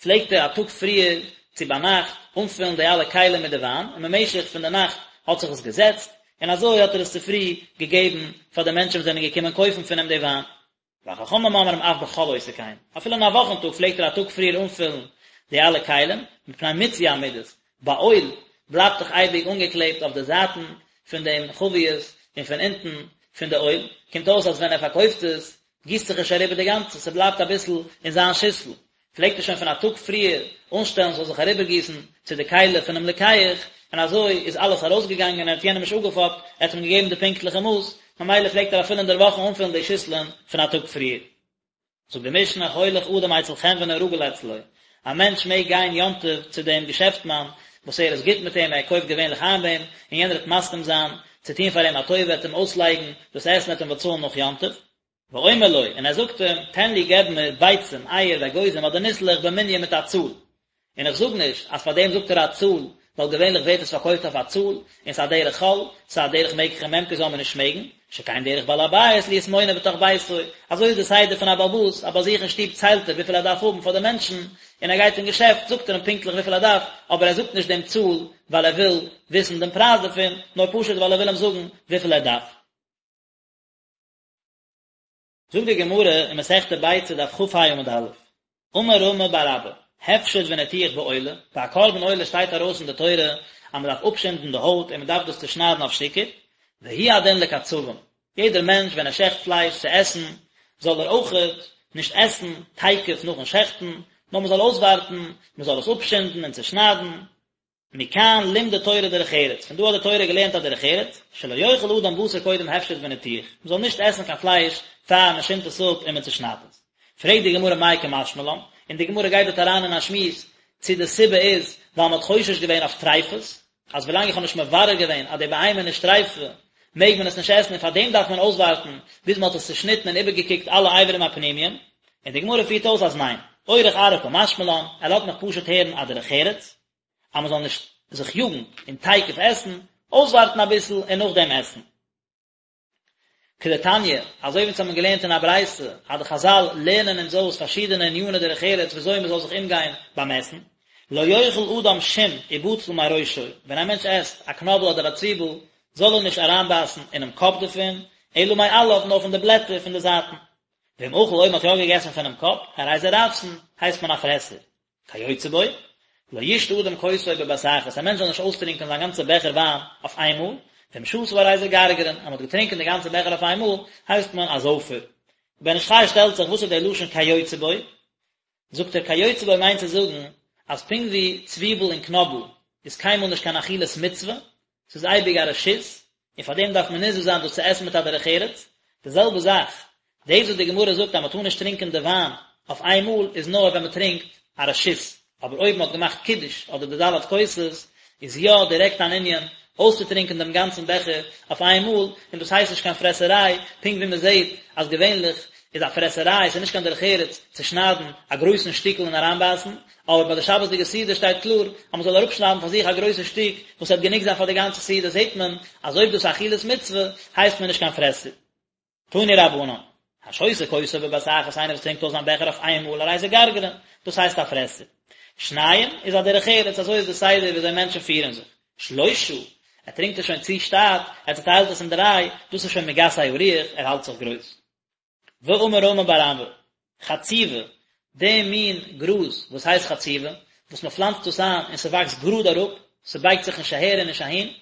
פלעגט ער א טאג פריער צו ביינאכט אנפילן די אלע כלים מיט די וויין, און במשך פון די נאכט האט זיך עס געזעצט, און אזוי האט ער עס צופרי געגעבן פאר די מענטשן וואס זענען געקומען קויפן פון אים די וויין. וחכמים אומרים אף בחול עושה כן, אפילו אין א וואכן טאג פלעגט ער א טאג פריער אנפילן די אלע כלים, מפני מיצוי המידות, ביי אויל בלייבט דאך אייביג אנגעקלעבט אויף די זייטן פון דעם חבית און פון אונטן פון די אויל, קומט אויס אז ווען ער פארקויפט עס גיסט זיך נישט אריבער די גאנצע, ס'בלייבט אביסל אין זיין שיסל, פלעגט ער שוין פון א טאג פריער אנשטעלן ס'זאל זיך אריבערגיסן צו די כלי פונעם לוקח, און אזוי איז אלעס ארויסגעגאנגען און ער האט יענעם נישט אפגעפאפט, ער האט אים געגעבן די פונקטליכע מאס, ממילא פלעגט ער אפילו אינדערוואכן אנפילן די שיסלען פון א טאג פריער. זאגט די משנה, הולך אדם אצל חנוני הרגיל אצלו, א מענטש מעג גיין יום טוב צו דעם געשעפטמאן וואס ער איז גוט מיט אים, ער קויפט געווענליך איין ביי אים, און יענער וועט מסכים זיין צו טון פאר אים א טובה, ער וועט אים אויסלייגן דאס עסן, ער וועט אים באצאלן נאך יום טוב. ואומר לו, און ער זאגט אים, תן לי געב מיר ביצים, אייער, ואגוזים אדער ניסלעך במנין מיט א צאל. און איך זאג נישט אז פאר דעם זאגט ער א צאל, ווייל געווענליך ווערט עס פארקויפט אויף א צאל, און ס'איז א דרך חול, ס'איז א דרך מקח וממכר זאל מען נישט מעגן, שכן דרך בעל הבית להיות מונה בתוך ביתו, אזוי איז די סדר פון א בעל הבית, אז ביי זיך אין שטוב ציילט ער וויפיל ער דארף האבן פאר די מענטשן, און ער גייט אין געשעפט זאגט ער אים פונקטליך וויפיל ער דארף, אבער ער זאגט נישט דעם צאל ווייל ער וויל וויסן דעם פרייז דערפון, נאר פשוט ווייל ער וויל אים זאגן וויפיל ער דארף. זאגט די גמרא אין מסכת ביצה דף כ"ה עמוד א', אמר רמי בר אבא, הפשט וניתוח בעולה, ביי א קרבן עולה שטייט ארויס אין די תורה אז מען דארף אפשינדן די הויט און מען דארף דאס צושניידן אויף שטיקער, והוא הדין לקצבים, יעדער מענטש ווען ער שעכט פלייש צו עסן, זאל ער אויכעט נישט עסן תיכף נאכן שעכטן, נאר מען זאל אויסווארטן, מען זאל עס אפשינדן און צושניידן, מכאן לימדה תורה דרך ארץ, פון דא האט די תורה געלערנט א דרך ארץ, שלא יאכל אדם בשר קודם הפשט וניתוח, מען זאל נישט עסן קיין פלייש פאר מען שינדט עס אפ און מען צושניידט עס. פרעגט די גמרא מאי קא משמע לן, און די גמרא גייט דארט אריין אין א שמועס צו די סיבה איז ווייל מען האט חושש געווען אויף טריפות, אז ווילאנג איך האב נישט מברר געווען אז די בהמה איז נישט טריפה מעג מען עס נישט עסן און פאר דעם דארף מען אויסווארטן ביז מען האט עס צושניטן און איבערגעקוקט אלע אברים הפנימיים, און די גמרא פירט אויס אז ניין, אורך ארעא קא משמע לן, ער לאזט מיך פשוט הערן א דרך ארץ, אז מען זאל נישט זיך יאגן און תיכף עסן, אויסווארטן אביסל און נאכדעם עסן. כדתניא, אזוי ווי אונז האבן געלערנט אין א ברייתא, אז די חזל לערנען אונז אויס פארשידענע עניני דרך ארץ ווי אזוי מען זאל זיך אומגיין ביים עסן. לא יאכל אדם שום ובצל מראשו, ווען א מענטש עסט א קנאבל אדער א צוויבל, זאל ער נישט אריינבייסן אינעם קאפ דערפון, אלא מעליו, נאר פון די בלעטער פון די זייטן. ואם אכל אויב מען האט יא געגעסן פונעם קאפ, הרי זה רעבתן, הייסט מען א פרעסער. כיוצא בו, לא ישתה אדם כוסו בבת אחת, א מענטש זאל נישט אויסטרינקען זיין גאנצע בעכער וויין אויף איינמאל, ואם שתה הרי זה גרגרן, אז מען האט געטרינקען די גאנצע בעכער אויף איינמאל, הייסט מען א זויפער. בן איש חי שטעלט זיך, וואס איז דער לשון כיוצא בו? זאגט ער כיוצא בו מיינט צו זאגן אז פונקט ווי צוויבל און קנאבל איז קיינמאל נישט קיין אכילת מצוה, ס'איז אייביג א רשות, און פאר דעם דארף מען נזהר זיין דאס צו עסן מיט א דרך ארץ, די זעלבע זאך, דאס וואס די גמרא זאגט אז מ'טאר נישט טרינקען די וויין אויף איין מאל איז נאר ווען מ'טרינקט א רשות, אבער אויב מ'האט געמאכט קידוש אדער די ד' כוסות איז יא דירעקט אן ענין אויסצוטרינקען דעם גאנצן בעכער אויף איין מאל, און דאס הייסט נישט קיין פרעסעריי, פונקט ווי מען זעט אז געווענליך איז א פרעסעריי, ס'איז נישט קיין דרך ארץ צו שניידן א גרויסן שטיקל און אריינבייסן, אבער ביי די שבת'דיגע סעודה שטייט קלאר אז מען זאל אראפשניידן פאר זיך א גרויסע שטיק וואס וועט גענוג זיין פאר די גאנצע סעודה, זעט מען אז אויב דאס איז אכילת מצוה הייסט מען נישט קיין פרעסער. תנו רבנן, השותה כוסו בבת אחת איינער וואס טרינקט אויס זיין בעכער אויף איין מאל הרי זה גרגרן, דאס הייסט א פרעסער. שניים איז א דרך ארץ, אזוי איז די סדר ווי אזוי מענטשן פירן זיך. שלושה, ער טרינקט עס שוין צו שטאט, ער צעטיילט עס אין דריי, דאס איז שוין מגסי הרוח, ער האלט זיך גרויס. ואמר רמי בר אבא, חצובה, די מין גראז וואס הייסט חצובה, וואס מען פלאנצט דאס איין און ס'וואקסט גראד אראפ, ס'בייגט זיך נישט אהער און נישט אהין,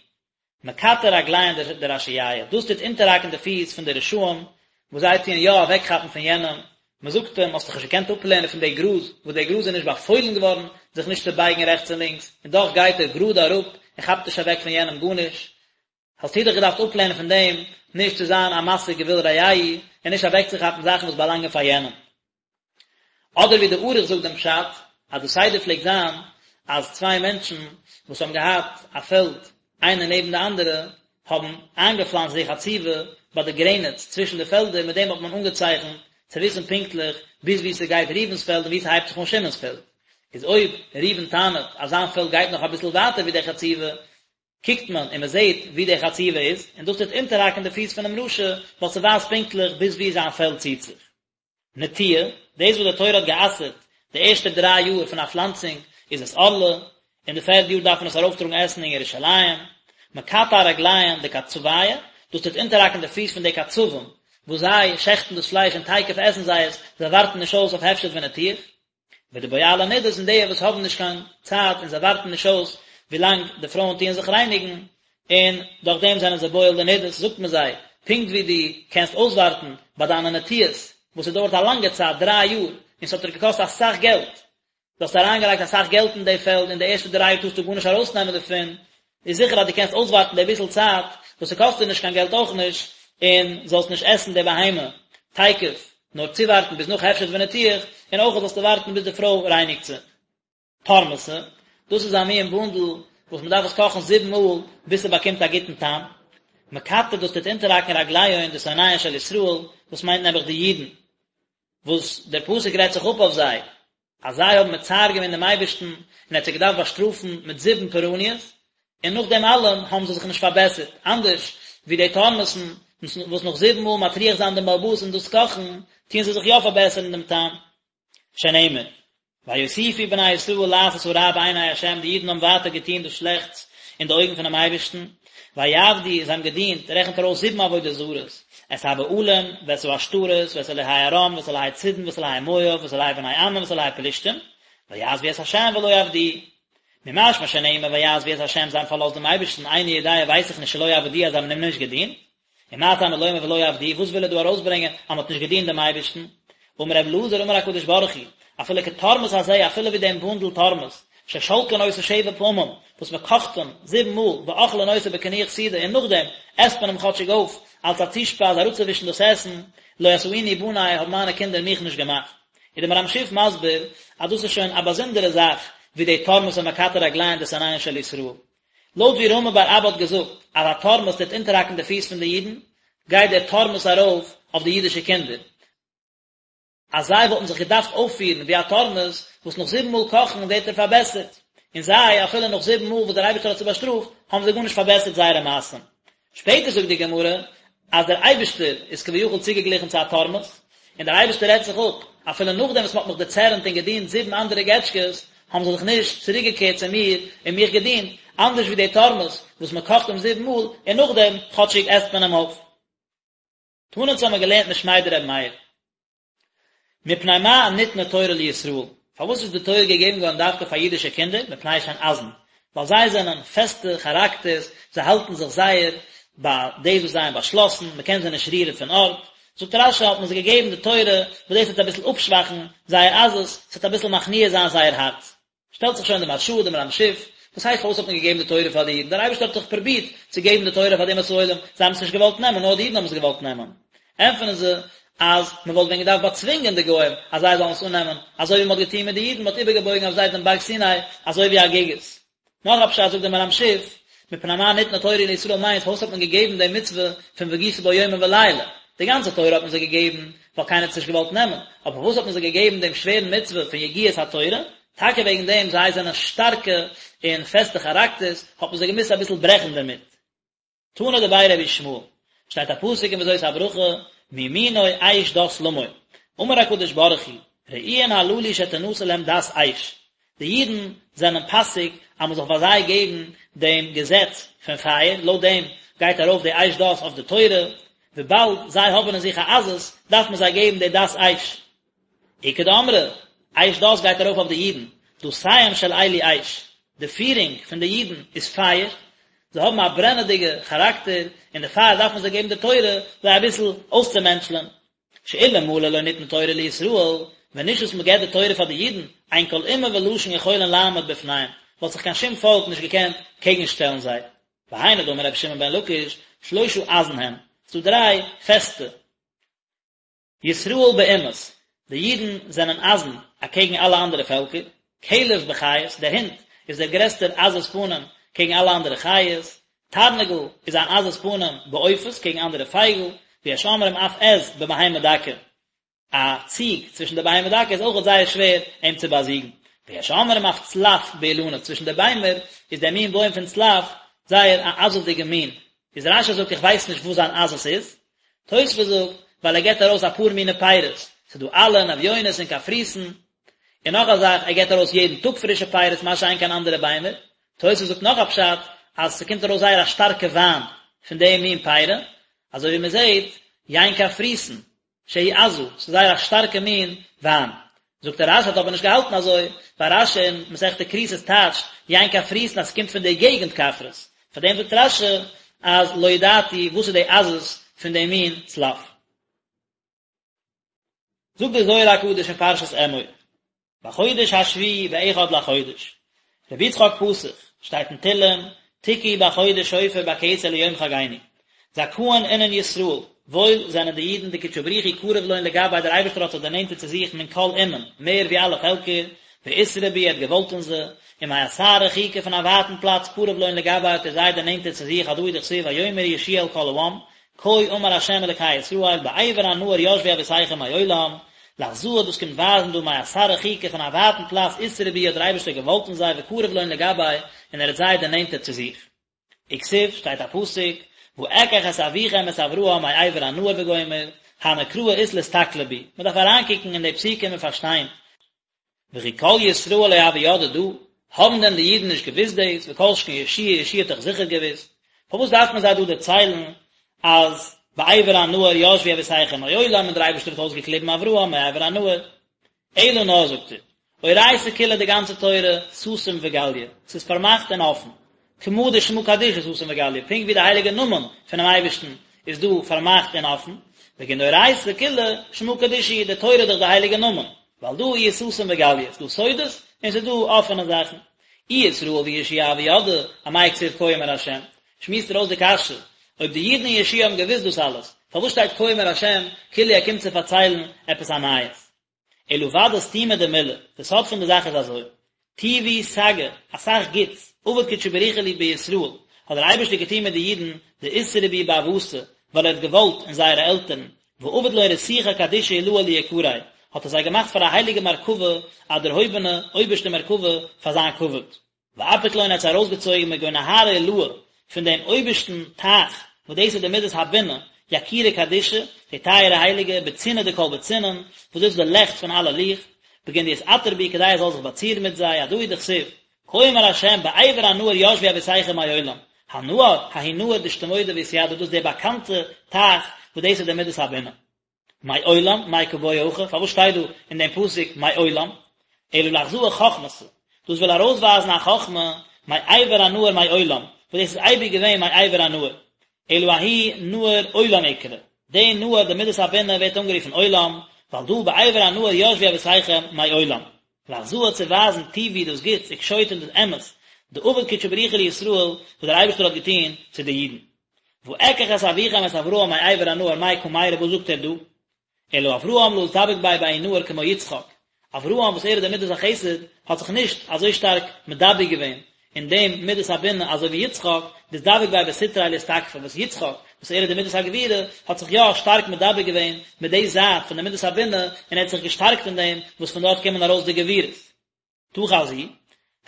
מקטע רגליהון דרשיעיא, דאס טוט אונטערהאקן די פיס פון די רשעים וואס זיי טוען יא אוועקכאפן פון יענעם, מען זאגט אים, האסט דיך נישט געקענט אפלערנען פון די גראז, וואס די גראז איז נישט באפוילן געווארן זיך נישט צו בייגן רעכטס און לינקס, און דאך גייט ער גראד אראפ און כאפט נישט אוועק פון יענעם גארנישט, האסטו דיך געדארפט אפלערנען פון דעם נישט צו זיין א מסיג גבול רעהו און נישט אוועקצוכאפן זאכן וואס באלאנגען פאר יענעם. אדער ווי די ערוך זאגט דעם פשט, אז די סדר פלעגט זיין אז צוויי מענטשן וואס האבן געהאט א פעלד איינער נעבן די אנדערע האבן איינגעפלאנצט די חצובה ביי די גרעניץ צווישן די פעלדער, מיט דעם האט מען אנגעצייכנט צו וויסן פונקטליך ביז וואו ס'גייט ראובן'ס פעלד און וואו ס'הייבט זיך אן שמעון'ס פעלד. איז אויב ראובן טענה'ט אז זיין פעלד גייט נאך אביסל ווייטער ווי די חצובה, קוקט מען און מען זעט וואו די חצובה איז, און דאס טוט אונטערהאקן די פיס פונעם רשע, ווייל ס'ווייזט פונקטליך ביז וואו זיין פעלד ציט זיך. נטיעה, דאס וואס די תורה האט גע'אסר'ט די ערשטע דריי יאר פון א פלאנצונג, איז עס ערלה, און די פערדע יאר דארף מען עס ארויפטראגן עסן אין ירושלים. מקטע רגליהון דקצביא, דאס טוט אונטערהאקן די פיס פון די קצבים, וואס זיי שעכטן דאס פלייש און תיכף עסן זיי עס, זיי ווארטן נישט אויס אויף הפשט וניתוח. ודבועלי נדות און די וואס האבן נישט קיין צייט און זיי ווארטן נישט אויס ווילאנג די פרויען טוען זיך רייניגן, און דורך דעם זענען זיי בועל די נדות, זאגט מען זיי, פונקט ווי דו קענסט אויסווארטן ביי דיינע נטיעות, וואס ס'דויערט א לאנגע צייט, דריי יאר, און ס'האט דיר געקאסט אסאך געלט, דו האסט אריינגעלייגט אסאך געלט אין די פעלד, און די ערשטע דריי יאר טארסטו גארנישט ארויסנעמען דערפון, איז זיכער אז דו קענסט אויסווארטן די ביסל צייט, וואס ס'קאסט דיר נישט קיין געלט אויך נישט, און זאלסט נישט עסן די בהמה תיכף, נאר צואווארטן ביז נאך הפשט וניתוח, און אויך זאלסטו ווארטן ביז די פרוי רייניגט זיך. תורמסא, דאס איז א מין בונדל וואס מ'דארף עס קאכן זיבן מאל ביז ס'באקומט א גוטן טעם. מקטע דאס טוט אונטערהאקן רגליהון דשונאיהון של ישראל, דאס מיינט נעבעך די אידן, וואס דער פסוק רעדט זיך אפ אויף זיי, אז זיי האבן מצער געווען דעם אייבערשטן און ער האט זיי געדארפט באשטראפן מיט זיבן פורעניות, און נאך דעם אלעם האבן זיי זיך נישט פארבעסערט, אנדערש ווי די תורמוס'ן וואס נאך זיבן מאל מטריח זיין דעם בעל הבית און דאס קאכן, טוען זיי זיך יא פארבעסערן דעם טעם. שנאמר, ויוסיפו בני ישראל לעשות הרע בעיני ה', די אידן האבן ווייטער געטון דאס שלעכטס אין די אויגן פונעם אייבערשטן, ויעבדו, זיי האבן געדינט, רעכנט ער אויס זיבן עבודה זרות, את הבעלים, ואת העשתרות, ואת אלהי ארם, ואת אלהי צידון, ואת אלהי מואב, ואת אלהי בני עמון, ואת אלהי פלשתים, ויעזבו את ה' ולא עבדוהו. ממשמע שנאמר ויעזבו את ה', זיי האבן פארלאזט דעם אייבערשטן, איני יודע ווייס איך נישט שלא עבדוהו אז זיי האבן אים נישט געדינט. ומה תלמוד לומר ולא עבדוהו, וואס וויל ער דא ארויסברענגען אז מען האט נישט געדינט דעם אייבערשטן? אמר רבי אלעזר אמר הקדוש ברוך הוא, אפילו כתורמוס הזה, אפילו ווי דעם בונדל תורמוס, ששולקין אותו שבע פעמים, וואס מען קאכט אים זיבן מאל, ואוכלין אותו בקינוח סעודה, און נאכדעם עסט מען אים כאטשיג אויף, אלס א צושפייז אראפצואווישן דאס עסן, לא עשאוני בני, האבן מיינע קינדער מיך נישט געמאכט. איז דער מהר"ם שיף מסביר, אז דאס איז שוין א באזונדערע זאך, ווי די תורמוס המקטע רגליהן דשונאיהן של ישראל. לויט ווי רמי בר אבא האט געזאגט אז א תורמוס טוט אונטערהאקן די פיס פון די אידן, גייט דער תורמוס ארויף אויף די אידישע קינדער, אז זיי וואלטן זיך געדארפט אויפפירן ווי א תורמוס וואס נאך זיבן מאל קאכן ווערט ער פארבעסערט, און זיי, אפילו נאך זיבן מאל וואס דער אייבערשטער האט זיי באשטראפט, האבן זיי גארנישט פארבעסערט זייערע מעשים. שפעטער זאגט די גמרא אז דער אייבערשטער איז כביכול צוגעגליכן צו א תורמוס, און דער אייבערשטער רעדט זיך אפ, אפילו נאכדעם וואס מען האט מיך דערצערנט און געדינט זיבן אנדערע געטשקעס, האבן זיי זיך נישט צוריקגעקערט צו מיר און מיך געדינט, אנדערש ווי די תורמוס וואס מען קאכט אים זיבן מאל און נאכדעם כאטשיג עסט מען אים אויף. תנא אונז האבן מיר געלערנט משמיה דרבי מאיר. מפני מה ניתנה תורה לישראל, פארוואס איז די תורה געגעבן געווארן דווקא פאר אידישע קינדער, מפני שהן עזין, ווייל זיי זענען פעסטע כאראקטערס, זיי האלטן זיך זייער ביי דאס וואס זיי האבן באשלאסן, מען קען זיי נישט רירן פון ארט, זאגט רש"י האט מען זיי געגעבן די תורה, וואס דאס וועט אביסל אפשוואכן זייער עזות, ס'וועט אביסל מכניע זיין זייער הארץ. שטעלט זיך שוין די מהרש"א, דער מהר"ם שיף, וואס הייסט פארוואס האט מען געגעבן די תורה פאר די אידן, דער אייבערשטער האט דאך פרובירט צו געבן די תורה פאר די אומות העולם, זיי האבן עס נישט געוואלט נעמען, נאר די אידן האבן עס געוואלט נעמען. ענטפערן זיי אז מען וואלט ווען געדארפט באצווינגען די גוים אז זיי זאלן עס אננעמען, אזוי ווי מען האט געטון מיט די אידן, מען האט איבערגעבויגן אויף זיי דעם בארג סיני אזוי ווי א גיגית. נאך א פשט זאגט דער מהר"ם שיף, מפני מה ניתנה תורה לישראל מיינט פארוואס האט מען געגעבן די מצוה פון והגית בו יומם ולילה, די גאנצע תורה האט מען זיי געגעבן ווייל קיינער האט עס נישט געוואלט נעמען, אבער פארוואס האט מען זיי געגעבן דעם שווערן מצוה פון יגיעת התורה, טאקע וועגן דעם זיי זענען שטארקע און פעסטע כאראקטערס האט מען זיי געמוזט אביסל ברעכן דערמיט. תנא דבי רבי ישמעאל, שטייט א פסוק אין וזאת הברכה, מימינו אש דת למו, אמר הקדוש ברוך הוא, ראויין הללו שתנתן להם דת אש, די אידן זענען פאסיג אז מען זאל פאר זיי געבן דעם געזעץ פון פייער, לויט דעם גייט ארויף די אש דת אויף די תורה, וויבאלד זיי האבן אין זיך א עזות, דארף מען זיי געבן די דת אש. איכא דאמרי, אש דת גייט ארויף אויף די אידן, דתיהם של אלו אש, די פירונג פון די אידן איז פייער, זיי האבן א ברענעדיגע כאראקטער, און דערפאר דארף מען זיי געבן די תורה, זיי אביסל אויסצומענטשלען. שאילמלא לא ניתנה תורה לישראל, ווען נישט וואס מען געבט די תורה פאר די אידן, אין כל אומה ולשון יכולין לעמוד בפניהם, וואלט זיך קיין שום פאלק נישט געקענט קעגנשטעלן זיי. והיינו דאמר רבי שמעון בן לקיש, שלושה עזין הם, ס'דא דריי פעסטע. ישראל באומות, די אידן זענען עזין אקעגן אלע אנדערע פעלקער, כלב בחיות, דער הונט איז דער גרעסטער עזות פנים קעגן אלע אנדערע חיות, תרנגול איז אן עזות פנים בעופות קעגן אנדערע פייגל, ויש אומרים אף עז בבהמה דקה, א ציג צווישן די בהמה דקה איז אויכעט זייער שווער אים צו באזיגן, ויש אומרים אף צלף באילנות, צווישן די ביימער איז דער מין בוים פון צלף זייער א עזות'דיגע מין, איז רש"י זאגט איך ווייס נישט וואס זיין עזות איז, תוספות זאגט, ווייל ער געבט ארויס אפאר מיני פירות, ס'איז דא עלין, אביונות און קפריסין, און נאך א זאך, ער געבט ארויס יעדן טאג פרישע פירות, מה שאין כן אנדערע ביימער. תוספות זאגט נאך א פשט, אז ס'קומט ארויס זייער א שטארקע וויין פון די מין פירות, אזוי ווי מ'זעט, יין קפריסין, שהיא עזה, ס'איז זייער א שטארקע מין וויין. זאגט ער רש"י האט אבער נישט געהאלטן אזוי, ווייל רש"י אין מסכת כריתות טייטשט יין קפריסין אז ס'קומט פון די געגנט קפרס, פאר דעם זאגט רש"י אז לא ידעתי וואס איז די עזות פון די מין צלף. זאגט דער זוהר הקדוש אין פרשת אמור. בחודש השביעי באחד לחודש. רבי יצחק פתח, שטייט אין תהלים, תקעו בחודש שופר בכסה ליום חגנו. זכאין אינון ישראל, וואויל זענען די אידן דקודשא בריך הוא קריב לון לגביה דער אייבערשטער האט זיך דערנענטערט צו זיך מן כל אומין, מער ווי אלע פעלקער, ואתרעי בהו ער האט געוואלט אין זיי, ומאתר רחיקא פון א ווייטן פלאץ קריב לון לגביה האט ער זיי דערנענטערט צו זיך הדא הוא דכתיב ויאמר יהושע אל כל העם, כה אמר ה' אלקי ישראל בעבר הנהר ישבו אבותיכם מעולם, לאחזאה דאס קומט ווייזן דהא מאתר רחיקא פון א ווייטן פלאץ אתרעי בהו האט דער אייבערשטער געוואלט אין זיי וקריב לון לגביה און ער האט זיי דערנענטערט צו זיך. וכתיב, שטייט א פסוק, ואקח את אביכם את אברהם מעבר הנהר וגומר, הני קראי אית לאסתכלא בהו, מען דארף אריינקוקן אין די פסוקים און פארשטיין, וכי כל ישראל לא הוו ידעי דא, האבן דען די אידן נישט געוואוסט דאס, וכל שכן יהושע, יהושע האט דאך זיכער געוואוסט, פארוואס דארף מען זיי דא דערציילן אז בעבר הנהר ישבו אבותיכם מעולם און דער אייבערשטער האט אויסגעקליבן אברהם מעבר הנהר? אלא נאר זאגט ער, אורייתא כולה די גאנצע תורה סתים וגליא, ס'איז פארמאכט און אפן, כמה דשמא קדישא סתים וגליא, פונקט ווי די הייליגע נאמען פונעם אייבערשטן איז דא פארמאכט און אפן, בגין דאורייתא כולה שמא קדישא, די תורה איז דאך די הייליגע נאמען, ועל דא איהו סתים וגליא, ס'איז דא סודות און ס'איז דא אפענע זאכן. אי ישראל ויהושע הוו ידעי, אמאי כתיב כה אמר השם? שמועסט ער אויס די קשיא, אויב די אידן און יהושע האבן געוואוסט דאס אלעס, פארוואס שטייט כה אמר השם כאילו ער קומט צו פארציילן עפעס א נייעס? אלא ודאי סתימא דמילה, די סוד פון די זאך איז אזוי, טיבו סגי, אסאך גוטס, עבד קודשא בריך הוא בישראל, האט דער אייבערשטער געטון מיט די אידן, דאתרעי בהו באבהתא, ווייל ער האט געוואלט אין זייערע עלטערן, ועבד לון רתיכא קדישא עילאה ליקריה, האט ער זיי געמאכט פאר א הייליגע מרכבה, א דערהויבענע, אויבערשטע מרכבה, פאר זיין כבוד. ואפיק לון האט זיי ארויסגעצויגן מגו נהרא עילאה, פון דעם אויבערשטן טייך, וואס דאס איז די מדת הבינה, יקירא קדישא, די טייערע הייליגע, בצינעא דכל בצינעין, וואס דאס איז די לעכט פון אלע ליכט. בגין דיתעטר בהו כדי ער זאל זיך באצירן מיט זיי, הדא הוא דכתיב, כה אמר ה' בעבר הנהר ישבו אבותיכם מעולם, הנהר, ההוא נהר דאשתמודע ואתידע דאס איז דער באקאנטע טייך וואס דאס איז די מידת הבינה. מעולם, מאי קא בעי הכא, פארוואס שטייט דא אין דעם פסוק מעולם? אלא לאחזאה חכמתא, דאס וויל ארויסווייזן א חכמה, מעבר הנהר מעולם, וואס דאס איז אייביג געווען מעבר הנהר. אלא ההוא נהר עולם אקרי, די נהר די מידת הבינה ווערט אנגערופן עולם, ווייל דא בעבר הנהר ישבו אבותיכם מעולם. לאחזאה צו ווייזן טיבו דאס גוטס וקשוטו און דאס אמת, דעבד קודשא בריך הוא לישראל וואס דער אייבערשטער האט געטון צו די אידן. ואקח את אביכם את אברהם מעבר הנהר מאי קא מיירי וואס זאגט ער דא? אלא אברהם לא אתדבק ביה בההוא נהר כמו יצחק, אברהם וואס ער איז דער מידת החסד האט זיך נישט אזוי שטארק מדבק געווען אין דעם מידת הבינה אזוי ווי יצחק דאתדבק ביה בסטריה לאתתקפא וואס יצחק וואס ער איז די מידת הגבורה האט זיך יא שטארק מדבק געווען מיט די זייט פון די מידת הבינה און ער האט זיך געשטארקט אין דעם וואס פון דארט קומען ארויס די גבורות. תא חזי,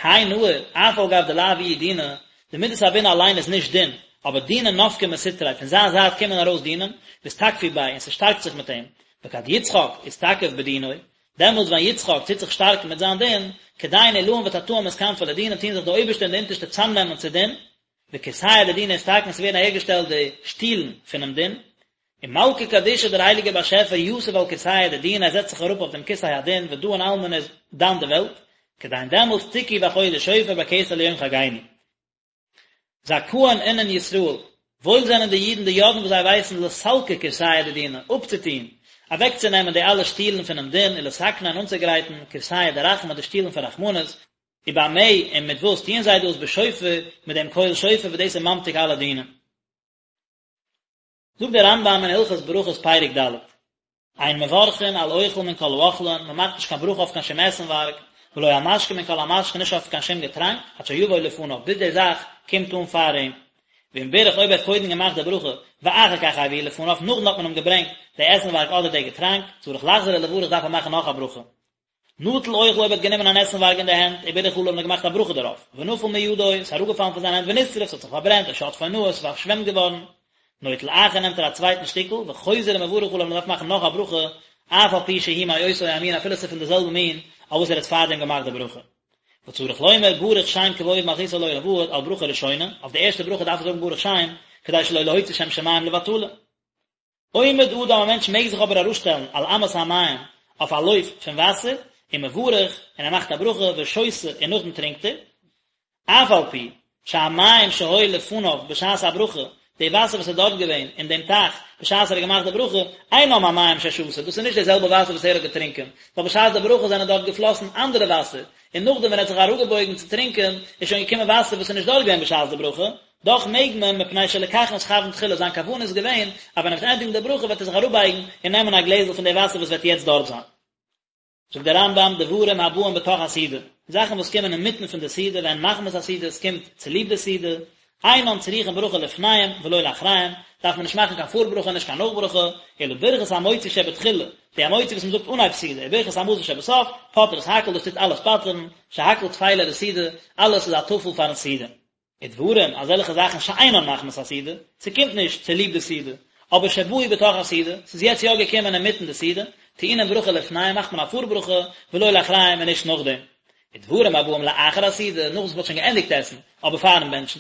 האי נהר, אף על גב דלאו איהו דינא, די מידת הבינה אליין איז נישט דין, אבער דינין נפקי מסטריה, פון זיין זייט קומען ארויס דינים, ואתתקפו ביה, און ס'שטארקט זיך מיט אים, וכד יצחק אתתקף בדינוי, דעמאלטס ווען יצחק טוט זיך שטארקן מיט זיין דין, כדין עילאין ותתאין מתכנפי לדינא טוען זיך די אויבערשטע און די אונטערשטע צאמנעמען צו דין, וכורסיא דדינא אתתקן ס'ווערן אהערגעשטעלט די שטולן פונעם דין, ומלכא קדישא דער הייליגער באשעפער יתיב על כורסיא דדינא ער זעצט זיך אראפ אויף דעם כסא הדין ודאין עלמא און איז דן די וועלט, כדין דעמאלטס תקעו בחודש שופר בכסה ליום חגנו. זכאין אינון ישראל, וואויל זענען די אידן דידעין וואס זיי ווייסן לסלקא כורסיא דדינא, אפצוטוהן, אוועקצונעמען די אלע שטולן פונעם דין ולתקנא און אנצוגרייטן כורסיא דרחמי די שטולן פון רחמנות, ובמה און מיט וואס טוען זיי דאס בשופר מיט דעם קול שופר וואס דאס איז ממתיק אלע דינים. זאגט דער רמב"ם אין הלכות ברכות פרק ד', אין מברכין על אוכל מן כל האוכלין, מען מאכט נישט קיין ברכה אויף קיין שום עסנווארג, ולא על משקה מן כל המשקין, נישט אויף קיין שום געטראנק, עד שיבוא לפניו, ביז די זאך קומט אן פאר אים. ואם בירך אויב ער האט קודם געמאכט די ברכה, ואחר כך הביאו לפניו, נאכדעם האט מען אים געברענגט די עסנווארג אדער די געטראנק, צריך לחזור ולברך דארף ער מאכן נאך א ברכה. נטל אוכל אויב ער האט גענומען אן עסנווארג אין די הענט, ובירך עליו און געמאכט א ברכה דערויף, ונפל מידו, עס איז אראפגעפאלן פון זיין הענט ונשרף, ס'האט זיך פארברענט, או שטפו נהר, עס איז פארשוועמט געווארן, נוטל אחר נעמט ער א צווייטן שטיקל, וחוזר ומברך עליו און דארף מאכן נאך א ברכה, אף על פי שהוא מאותו המין אפילו עס איז פון די זעלבע מין אויף וואס ער האט פארדעם געמאכט די ברכה. וצריך לומר ברוך שם כבוד מלכותו לעולם ועד על ברכה ראשונה, אויף די ערשטע ברכה דארף ער זאגן ברוך שם, כדי שלא להוציא שם שמים לבטלה. עומד אדם א מענטש מעג זיך אבער אראפשטעלן על אמת המים אויף א לויף פון וואסער, ומברך, און ער מאכט א ברכה, ושותה, און נאכדעם טרינקט ער, אף על פי שהמים שהיו לפניו בשעת הברכה, די וואסער וואס איז דארט געווען אין דעם טייך בשעת ער האט געמאכט די ברכה, אינם המים ששתה, דאס איז נישט די זעלבע וואסער וואס ער האט געטרינקען, ווייל בשעת די ברכה זענען דארט געפלאסן אנדערע וואסער, און נאכדעם ווען ער האט זיך אראפגעבויגן צו טרינקען איז שוין געקומען וואסער וואס איז נישט דארט געווען בשעת די ברכה, דאך מעג מען, מפני שלכך נתכוון תחילה, זיין כוונה איז געווען אז ווען ער וועט ענדיגן די ברכה וועט ער זיך אראפבייגן און נעמען א גלעזל פון די וואסער וואס וועט יעצט דארט זיין. זאגט דער רמב"ם, דברים הבאים בתוך הסעודה, זאכן וואס קומען אינמיטן פון די סעודה, והן מחמת הסעודה, עס קומט צוליב די סעודה, אינן צריכין ברכה לפניהם ולא לאחריהם, דארף מען נישט מאכן קיין פארברכה און נישט קיין נאכברכה, אלא ברכת המוציא שבתחילה, די המוציא וואס מען זאגט אנהייב סעודה, וברכת המזון שבסוף, פוטרות הכל, דאס טוט אלעס פטר'ן, שהכל טפלה לסעודה, אלעס איז א טפל פארן סעודה. ודברים, אזעלכע זאכן שאינן מחמת הסעודה, ס'קומט נישט צוליב די סעודה, אבער שבאו בתוך הסעודה, ס'איז יעצט יא געקומען אינמיטן די סעודה, טעונין ברכה לפניהם מאכט מען א פארברכה, ולא לאחריהם און נישט נאכדעם. ודברים הבאים לאחר הסעודה, נאך וואס מ'האט שוין געענדיגט עסן, אבער פארן בענטשן,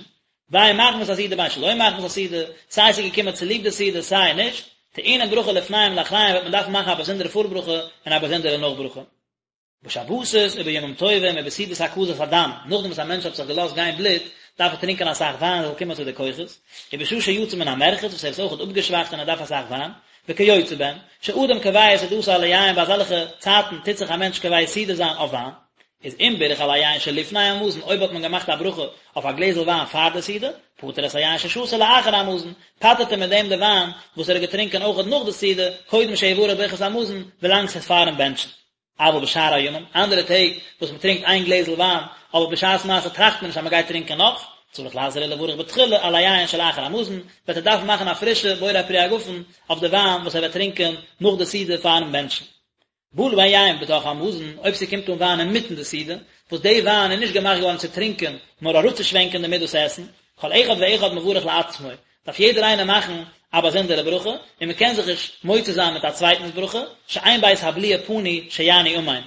בין מחמת הסעודה בין שלא מחמת הסעודה, סיי ס'איז געקומען צוליב די סעודה סיי נישט, טעונין ברכה לפניהם ולאחריהם וועט מען דארפן מאכן א באזונדערע פארברכה און א באזונדערע נאכברכה. בשבתות ובימים טובים ובסעודת הקזת הדם, נאכדעם וואס א מענטש האט זיך געלאזט גיין בלוט, דארף ער טרינקען אסאך וויין ער זאל קומען צו די כוחות, ובשעה שיצא מן המרחץ וואס ער איז אויכעט אפגעשוואכט און ער דארף אסאך וויין, וכיוצא בהן, שאדם קובע סעודתו על היין ביי אזעלכע צייטן טוט זיך א מענטש קובע סעודה זיין אויף וויין, איז אם בירך על היין שלפני המזון אויב האט מען געמאכט א ברכה אויף א גלעזל וויין פאר די סעודה, פטר את היין ששתה לאחר המזון, פטר'ט ער מיט דעם די וויין וואס ער האט געטרינקען אויכעט נאך די סעודה, קודם שיברך ברכת המזון, ווילאנג ס'איז פארן בענטשן. אבל בשאר הימים, אנדערע טעג וואס מען טרינקט איין גלעזל וויין, אבער בשעת מעשה טראכט מען נישט אז מען גייט טרינקען נאך, צריך לחזור ולברך בתחילה על היין שלאחר המזון, וועט ער דארפן מאכן א פרישע בורא פרי הגפן אויף די וויין וואס ער וועט טרינקען נאך די סעודה פארן בענטשן. בא להן יין בתוך המזון, אויב ס'קומט אן וויין אינמיטן די סעודה, וואס די וויין איז נישט געמאכט געווארן צו טרינקען, נאר אראפצושווענקען דערמיט דאס עסן, כל אחד ואחד מברך לעצמו, דארף יעדער איינער מאכן א באזונדערע ברכה, און מען קען זיך נישט מוציא זיין מיט א צווייטנס ברכה, שאין בית הבליעה פנוי שיענו אמן.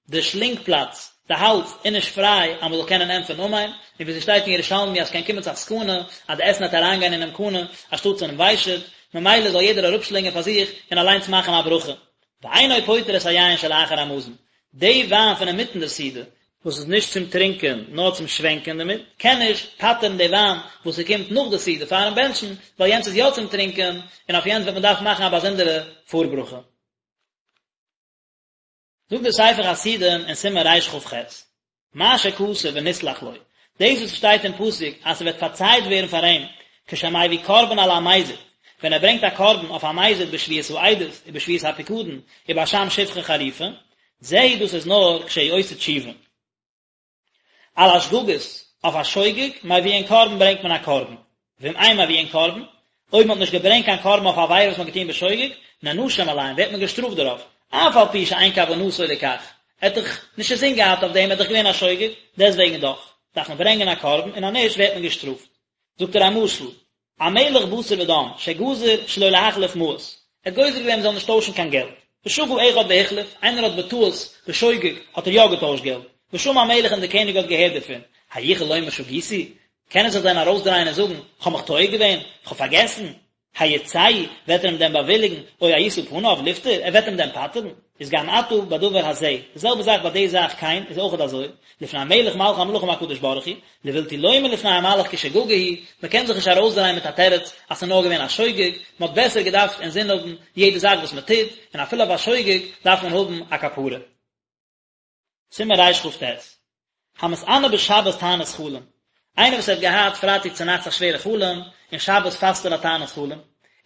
די שלינג פלאץ, די האלז, איז נישט פריי אז מען זאל קענען ענטפערן אמן, און ווי ס'שטייט אין ירושלמי אז ס'קען קומען צו א סכנה אז די עסן וועט אריינגיין אינעם קנה אנשטאטס אינעם ושט, ממילא זאל יעדער אראפשלינגען פאר זיך און אליינס מאכן א ברכה. ואינו פוטר את היין שלאחר המזון, די וויין פון אינמיטן די סעודה, וואס איז נישט צום טרינקען נאר צום שווענקען דערמיט, קען נישט פטר'ן די וויין וואס ס'קומט נאך די סעודה פאר'ן בענטשן, ווייל יענץ איז יא צום טרינקען, און אויף יענץ וועט מען דארפן מאכן א באזונדערע פארברכה. זאגט דער ספר חסידים אין סימן רכ"ח, מה שכתוב ונסלח לו, דאס וואס שטייט אין פסוק אז ס'וועט פארצייט ווערן פאר אים, כשמביא קרבן על המזיד, ווען ער ברענגט א קרבן אויף א מזיד בשבועת העדות ובשבועת הפיקדון ובאשם שפחה חרופה, זהו דאס איז נאר כשהוא עושה תשובה. על השגגות, אויף א שוגג, מביאין קרבן ברענגט מען א קרבן, ואם אין מביאין קרבן, אויב מען האט נישט געברענגט קיין קרבן אויף א עבירה וואס מען האט געטון בשוגג, נענשים עליהם, ווערט מען געשטראפט דערויף, אף על פי שאין כוונתו לכך, ער האט דאך נישט אינזין געהאט אויף דעם, ער איז דאך געווען א שוגג, דעסטוועגן דאך, דארף מען ברענגען א קרבן, און אז נישט ווערט מען געשטראפט. זאגט ער א משל, א מלך בשר ודם, שגזר שלא להחליף מעות, ער האט גוזר געווען מען זאל נישט טוישן קיין געלט, ושגה אחד והחליף, איינער האט בטעות, בשוגג, האט ער יא געטוישט געלט, ושמע המלך און דער קעניג האט געהערט דערפון, היכול לומר שגיתי, קען ער זיך דען ארויסדרייען און זאגן, כ'האב מיך טועה געווען, כ'האב פארגעסן? הירצהו, וועט ער אים דען באוויליגן, או הישא פניו לפטור, ער וועט אים דען פטר'ן? איז גם עתה בדבר הזה, די זעלבע זאך ביי די זאך כן, איז אויכעט אזוי, לפני המלך מלכי המלכים הקדוש ברוך הוא, לבלתי לומר לפני המלאך כי שגגה היא, מען קען זיך נישט ארויסדרייען מיט א תירוץ אז ס'איז נאר געווען א שוגג, מען האט בעסער געדארפט אינזין האבן יעדע זאך וואס מען טוט, און אפילו אויף א שוגג דארף מען האבן א כפרה. סימן רכ"ט, המתענה בשבת תענית חלום, איינער וואס האט געהאט פרייטאג צונאכטס א שווערע חלום, און שבת פאסט ער א תענית חלום,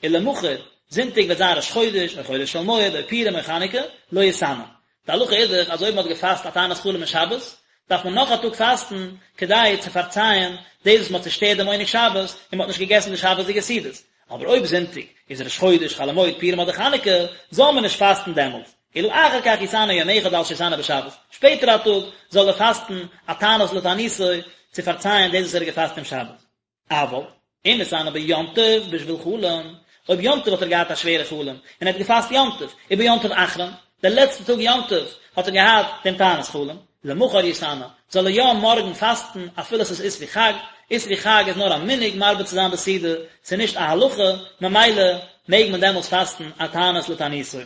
ולמחר, זונטאג וועט זיין ראש חודש, או חולו של מועד, או פורים, או חנוכה, לא יתענה. די הלכה איז דאך אז אויב מען האט געפאסט א תענית חלום אין שבת, דארף מען נאך א טאג פאסטן כדי צו פארצייען דאס וואס מען האט צושטערט דעם עונג שבת און מען האט נישט געגעסן די שבת'דיגע סעודות. אבער אויב זונטאג איז ראש חודש, חול המועד, פורים אדער חנוכה, זאל מען נישט פאסטן דעמאלטס, אלא אחר כך יתענה יום אחד על שהתענה בשבת, שפעטער א טאג זאל ער פאסטן א תענית לתעניתו צו פארצייען דאס וואס ער האט געפאסט אום שבת. אבל, אם התענה ביום טוב בשביל חלום, אויב יום טוב האט ער געהאט א שווערע חלום, און ער האט געפאסט יום טוב, וביום טוב אחרון, דער לעצטע טאג יום טוב האט ער געהאט דעם תענית חלום, למחר יתענה, זאל ער יא מארגן פאסטן אפילו עס איז אסרו חג, אסרו חג איז נאר א מנהג מרבה צו זיין בסעודה, ס'איז נישט א הלכה, ממילא מעג מען דעמאלטס פאסטן א תענית לתעניתו.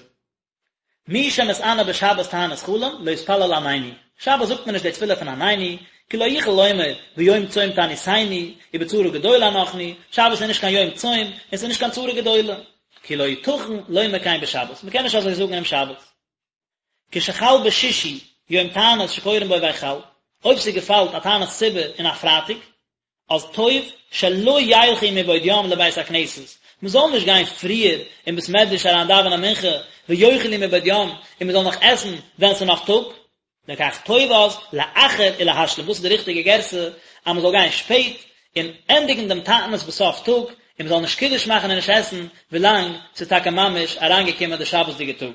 מי שמתענה בשבת תענית חלום, לא יתפלל עננו. שבת זאגט מען נישט די תפילה פון עננו, כי לא יוכל לומר ביום צום תעניתנו, ובצרה גדולה אנחנו, שבת איז נישט קיין יום צום, און ס'איז נישט קיין צרה גדולה. כי לא יתכן לומר כן בשבת, מ'קען נישט אזוי זאגן אום שבת. כשחל בשישי יום תענית שקורין בו ויחל, אויב ס'געפאלט א תענית ציבור אין א פרייטאג, אז טוב שלא ילכו מבעוד יום לבית הכנסת, מען זאל נישט גיין פריער אין בית מדרש אריין דאווענען מנחה, ויאכלו מבעוד יום, און מען זאל נאך עסן ווען ס'איז נאך טאג, לכך טוב אז לאחר ולהשלים, דאס איז די ריכטיגע גירסא, אז מען זאל גיין שפעט און ענדיגן דעם תענית בסוף טאג, און מען זאל נישט קידוש מאכן און נישט עסן ווילאנג ס'איז טאקע ממש אריינגעקומען די שבת'דיגע טאג.